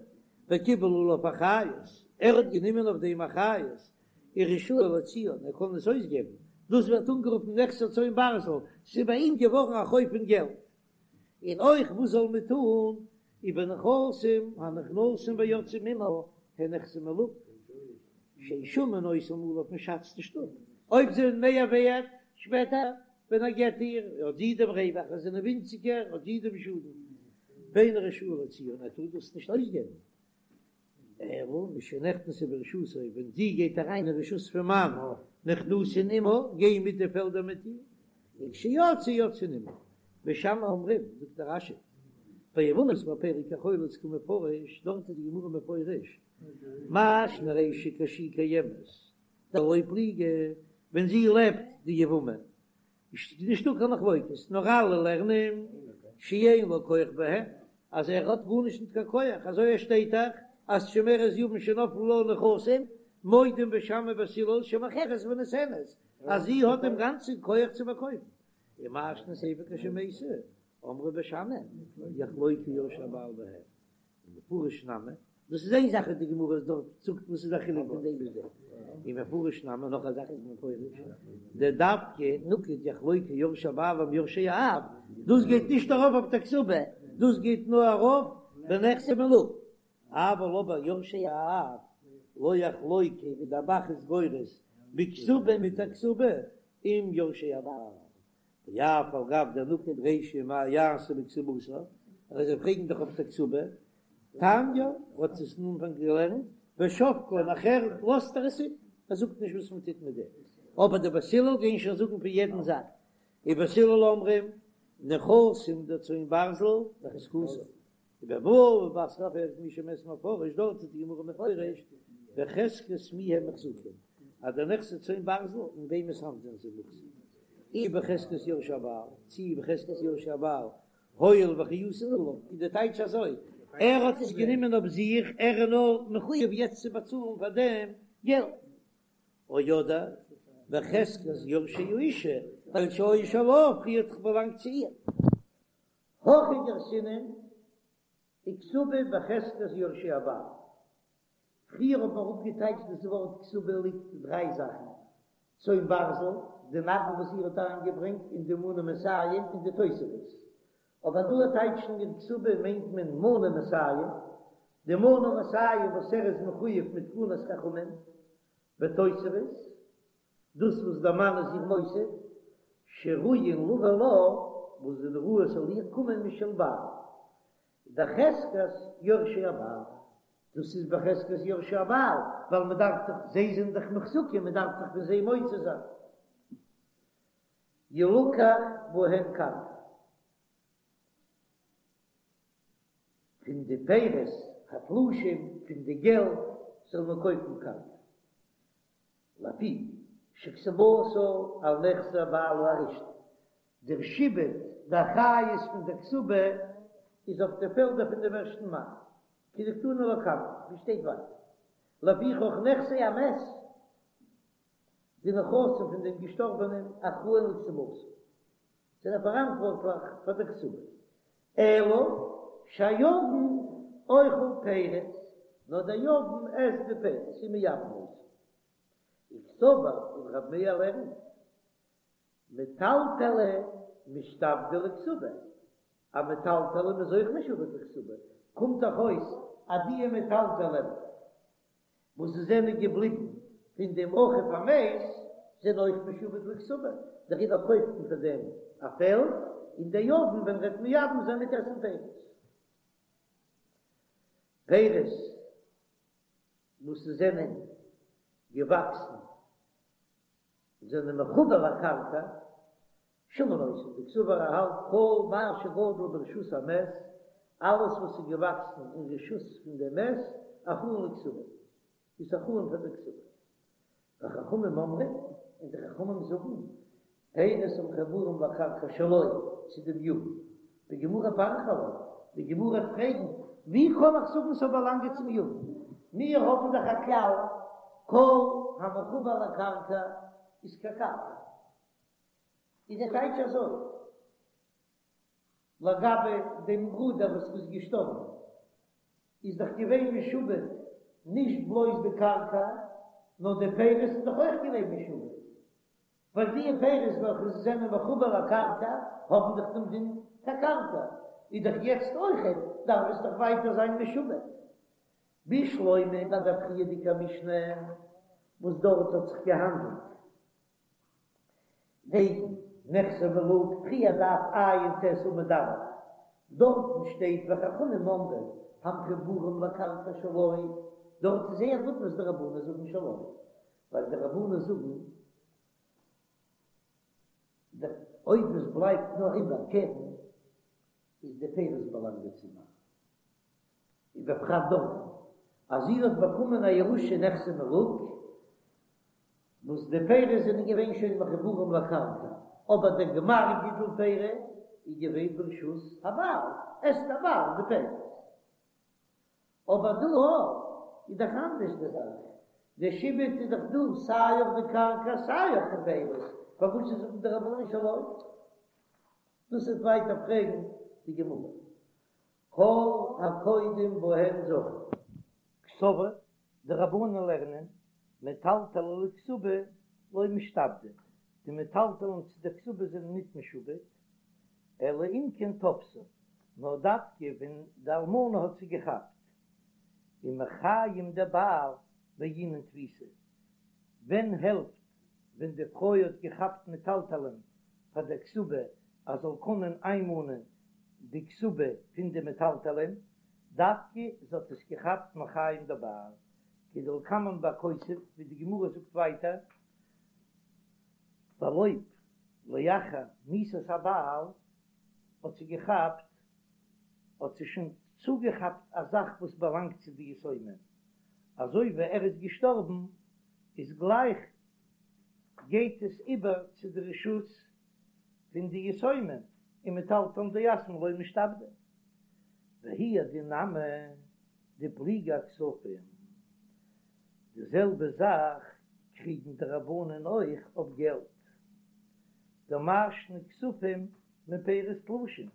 וקיבל עליו אחריות, ער האט גענומען אויף דעם אחריות, ורשאי להוציאן, ער קען עס אויסגעבן, דאס ווערט אנגערופן נכסי צאן ברזל, ס'איז ביי אים געווארן א חוב פון געלט. און אויך וואס זאל מען טון ובנכסים הנכנסים ויוצאים עמה הן נכסי מלוג שאין שמין אותם עליו מען שאצט נישט אפ אויב זיי זענען מער ווערט שפעטער ווען ער געט איר האט זי דעם רווח אז זיי זענען ווינציגער האט זי דעם שאדן ואינו רשאי להוציאן ער טאר דאס נישט אויסגעבן. אלא משנכנסו ברשותו, ווען זי גייט אריין אין רשות פון מאן, נכנסין עמה, גייען מיט די פעלדער מיט איר, וכשיצאו יוצאין עמה. בית שמאי אומרים, זאגט דער רש"י, ביבמות בפרק החולץ קא מפרש, דארט איז די גמרא מפרש, מאי שנא רישא כשהיא קיימת, דלא פליגי, ווען זי לעבט די יבמה, איז נישטא קיין מחלוקת, נאר אלע לערנען שאין לו כח בהם, אז ער האט גארנישט ניט קיין כח, אזוי עס שטייט דאך אז שומרת יבם שנפלו לה נכסים, מודים בית שמאי ובית הלל שמוכרת ונותנת, אז זי האט דעם גאנצן כח צו פארקויפן. ומאי שנא סיפא כשמתה, אמרו בית שמאי, יחלוקו יורשי הבעל בהן. ומפרש נמי, דאס איז איין זאך וואס די גמרא דארט זאגט וואס איז א חילוק פון דעם ביז דעם, ומפרש נמי נאך א זאך איז מפורש, דדווקא נקט יחלוקו יורשי הבעל עם יורשי האב, דאס גייט נישט ארויף אויף די כתובה, דאס גייט נאר ארויף בנכסי מלוג. אבל אבער יורשי האב לא יחלוקו ווי דער ב"ח איז גורס בכתובה מיט א כתובה עם יורשי הבעל ואף על גב דנקט רישא מה יעשה בכתובתה אז זיי פרעגן דאך אויף די כתובה תניא האט עס אין אנפאנג געלערנט ושבקה נאכער לאזט ער עס איבער ער זאגט נישט וואס מען טוט מיט דעם אבער די בית הלל גייען שוין זאגן פון יעדן זאך ובית הלל אומרים נכסים דצאן ברזל בחזקתו ובבבא בתרא פרק מי שמת מפרש דארט איז די גמרא מפרש בחזקת מי הם מוחזקים אז די נכסי צאן ברזל אין וועמענס האנט זענען זיי מוחזק אי בחזקת יורשי הבעל צי בחזקת יורשי הבעל הואיל ואחריותן עליו איז די טייטש אזוי ער האט עס גענומען אויף זיך ער איז נאר מחויב יעצט צו באצאלן פאר דעם געלט או אדער בחזקת יורשי האשה ווייל שהיו שלה פריער האט דאך באלאנגט צו איר. הכי גרסינן וכתובה בחזקת יורשי הבעל. פריער האט מען אראפגעטייטשט דאס ווארט כתובה ליגט דריי זאכן, צאן ברזל, די נדן וואס איר האט אריינגעברענגט און די מנה מאתים און די תוספות. אבער דא טייטשן מיר כתובה מיינט מען מנה מאתים, די מנה מאתים וואס ער איז מחויב מיט תקנת חכמים, ותוספות, דאס וואס דער מאן איז איר מוסיף, שראויין לבא לה, וואס זענען ראוי ס'זאל איר קומען משל בעל, בחזקת יורשי הבעל, דאס איז בחזקת יורשי הבעל, ווייל מען דארף דאך, זיי זענען דאך מוחזקים, מען דארף דאך פון זיי מוציא זיין. ילקח בהן קרקע. פון די פירות התלושים, פון די געלט, זאל מען קויפן קרקע. לפי שכתובתה על נכסי בעלה הראשון, דער שעבוד, די אחריות פון דער כתובה איז אויף די פעלדער פון דעם ערשטן מאן, כדקתני לקמן, ווי שטייט ווייטער, לפיכך נכסי המת, די נכסים פון דעם געשטארבענעם אחראין לכתובתה, זענען פאראנטווארטליך פאר דער כתובה, אלא שהיבם אוכל פירות, נאר דער יבם עסט די פירות, ומייבם אותן. וקסבר און רב מאיר לערנט, מטלטלי משתעבדי לכתובה, א מטלטלין איז אויך משועבד לכתובה, קומט דאך אויס אז דיע מטלטלין וואס זיי זענען געבליבן פון דעם אחיו המת זענען אויך משועבד לכתובה, דעריבער קויפט מען פאר דעם א פעלד, און דער יבם ווען ער וועט מייבם זיין וועט עסן פירות. פירות וואס זענען געוואקסן זענען מחובר לקרקע, שמין אותן, דקסבר ער האלט כל מה שגדל ברשות המת, אלעס וואס איז געוואקסן אין רשות פון דעם מת, אחראין לכתובה, איז אחראין פאר די כתובה. וחכמים אומרים, און די חכמים זאגן, פירות המחוברים לקרקע שלו, צו דעם יבם. בגמרא פריכא עלה, די גמרא וועט פרעגן, ווי קען איך זאגן ס'זאל באלאנגען צום יבם? מיר האבן דאך א כלל, כל המחובר לקרקע איז כקרקע. איז דער טייטש אזוי, לגבי דעם ברודער וואס איז געשטארבן, איז דאך געווען משועבד נישט בלויז די קרקע, נאר די פירות איז דאך אויך געווען משועבד, ווייל די פירות וועלכע זענען מחובר לקרקע האבן דאך דעם דין כקרקע, איז דאך יעצט אויכעט דארף עס דאך ווייטער זיין משועבד. בשלמא ביי דער פריערדיגער משנה וואס דארט האט זיך געהאנדלט וועגן נכסי מלוג פריער דף ע"ט עמוד א', דארטן שטייט וחכמים אומרים המחוברים לקרקע שלו, דארט איז זייער גוט וואס די רבנן זאגן שלו, ווייל די רבנן זאגן אויב עס בלייבט נאר איבער קרן איז די פירות באלאנגען צום מאן. ובפרט דארטן אז זי האט באקומען א ירושה נכסי מלוג, וואס די פירות זענען געווען שוין מחוברים לקרקע, אבער דער גמר גידול פירות איז געווען ברשות הבעל, עסט דער בעל די פירות. אבער דא איז דאך אנדערש די זאך, די שעבוד איז דאך דא סיי אויף די קרקע סיי אויף די פירות, פארוואס זאגן די רבנן שלו? דאס וועט ווייטער פרעגן די גמרא. כל הקודם בהן זכה. קסבר, די רבנן לערנען, מטלטלי לכתובה לא משתעבדי, די מטלטלין צו דער כתובה זענען ניט משועבד, אלא אם כן תפסה, נאר דווקא ווען די אלמנה האט זי געכאפט. ומחיים דבעל בעינן תפיסה, ווען העלפט ווען די פרוי האט געכאפט מטלטלין פאר דער כתובה אז זאל קענען איינמאנען די כתובה פון די מטלטלין, דווקא זי האט עס געכאפט מחיים דבעל, כדלקמן בכותב, ווי די גמרא זאגט ווייטער, ווייל אויב לאחר מיתת הבעל האט זי געכאפט, האט זי שוין צוגעכאפט א זאך וואס באלאנגט צו די יתומים, אזוי ווי ער איז געשטארבן איז גלייך גייט עס איבער צו די רשות פון די יתומים, און מטלטלין דיתמי לא משתעבדי. והוא הדין נמי דפליגי אכספים, די זעלבע זאך קריגן די רבנן אויך אויף געלט, דמאי שנא כספים מפירות תלושים,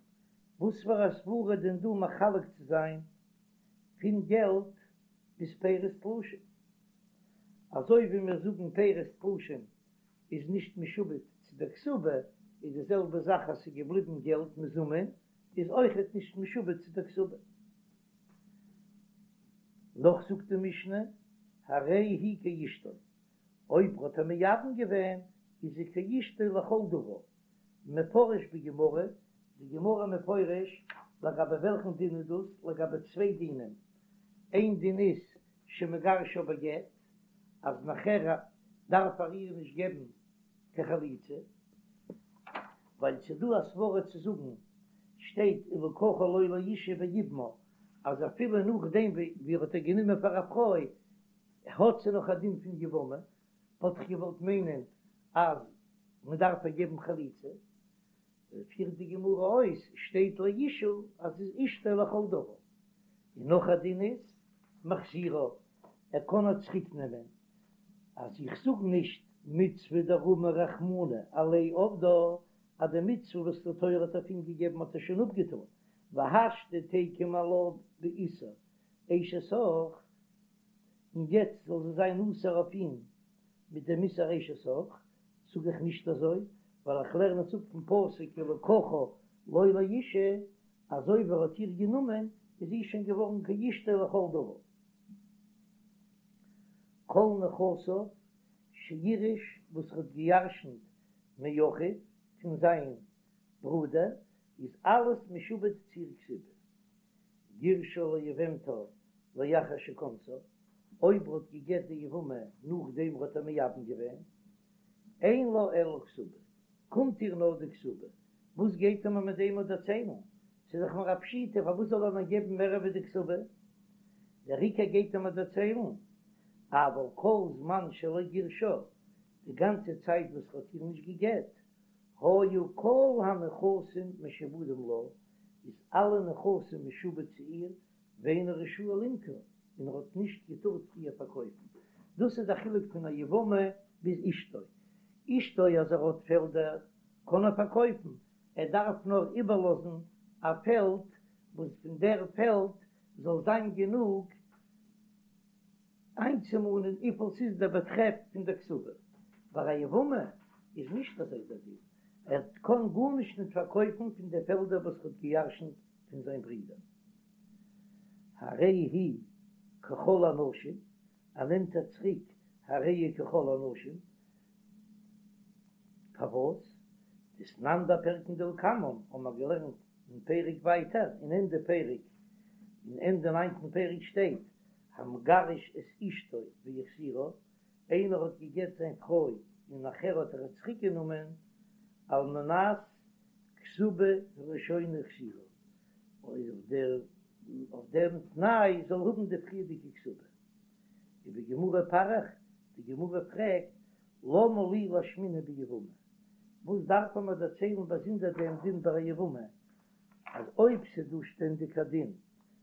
וואס פאר א סברא דען דא מחלק צו זיין פון געלט ביז פירות תלושים? אזוי ווי מיר זאגן פירות תלושים איז נישט משועבד צו דער כתובה, איז די זעלבע זאך אז ס'איז געבליבן געלט מזומן איז אויכעט נישט משועבד צו דער כתובה. נאך זאגט די משנה, הרי היא כאשתו, אויב האט ער מייבם געווען איז זי כאשתו לכל דבר, מפרש בגמרא, די גמרא מפרש לגבי וועלכן דין איז דאס, לגבי צוויי דינים, איין דין איז שמגרשה בגט, אז נאכער דארף ער איר נישט געבן קיין חליצה, ווייל ס'איז דא א סברא צו זאגן, שטייט ולקחה לו לאשה ויבמה, אז אפילו נאכדעם ווי ער האט איר גענומען פאר א פרוי, האט זי נאך א דין פון יבמה, וואלט איך געוואלט מיינען אז מען דארף איר געבן חליצה, פירט די גמרא אויס, שטייט לאשה אז זי איז אשתו לכל דבר, און נאך א דין איז מחזירה, ער קען איר צוריק נעמען, אז איך זאג נישט מצוה דרמא רחמנא עליה עבדה, אז די מצוה וואס די תורה האט אויף אים געגעבן האט ער שוין אפגעטון, והשתא תיקום עלה באיסור אשת אח, און יעצט זאל זי זיין אסור אויף אים מיט דעם איסור אשת אח, זאג איך נישט אזוי, ווייל איך לערן עס אפ פון פסוק ולקחה לו לאשה, אז אויב ער האט איר גענומען איז זי שוין געווארן כאשתו לכל דבר. כל נכסיו שירש וואס ער האט געירשנט מאחיו פון זיין ברודער איז אלעס משועבד צו איר כתובה. גירשה ליבמתו לאחר שכנסה, אויב ער האט געגט די יבמה נאכדעם ער האט איר מייבם געווען, אין לה אלא כתובה, קומט איר נאר די כתובה, וואס גייט ער מיר מיט דעם דערציילן? ס'איז דאך מיר א פשיטא, פארוואס זאל ער מיר געבן מער ווי די כתובה? דער עיקר גייט ער מיר דערציילן, אבל כל זמן שלא גירשה, די גאנצע צייט וואס ער האט איר נישט געגט, היו כל הנכסים משועבדים לה, איז אלע נכסים משועבד צו איר, ואינו רשאי למכור, און ער האט נישט געטארט איר פארקויפן. דאס איז די חילוק פון א יבמה ביז אשתו. אשתו אז ער האט פעלדער קען ער פארקויפן, ער דארף נאר איבערלאזן א פעלד וואס פון דער פעלד זאל זיין גענוג איינצומאנען וויפיל ס'איז דער באטרעף פון דער כתובה. ביי א יבמה איז נישט אזוי דער דין, ער קען גארנישט ניט פארקויפן פון די פעלדער וואס ער האט געירשנט פון זיין ברודער. הרי היא ככל הנשים, ער נעמט איר צוריק הרי היא ככל הנשים, פארוואס? דתנן בפרקין דלקמן האבן מיר געלערנט אין פרק ווייטער אין ענדע פרק, אין ענדע ניינטן פרק שטייט המגרש את אשתו והחזירה, איינער האט געגט זיין פרוי און נאכער האט ער איר צוריק גענומען, על מנת כתובה הראשונה החזירה, אויף דער אויף דעם תנאי זאל האבן די פריערדיגע כתובה. ובגמרא פריך, די גמרא פרעגט, למה לי לאשמועינן ביבמה, וואס דארף מען מיר דערציילן באזונדער דעם דין ביי א יבמה, אז אויב ס'איז דא שטענדיג א דין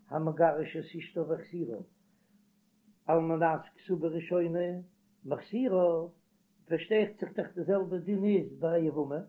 המגרש את אשתו והחזירה על מנת כתובה ראשונה מחזירה, פארשטייט זיך דאך די זעלבע דין איז ביי א יבמה.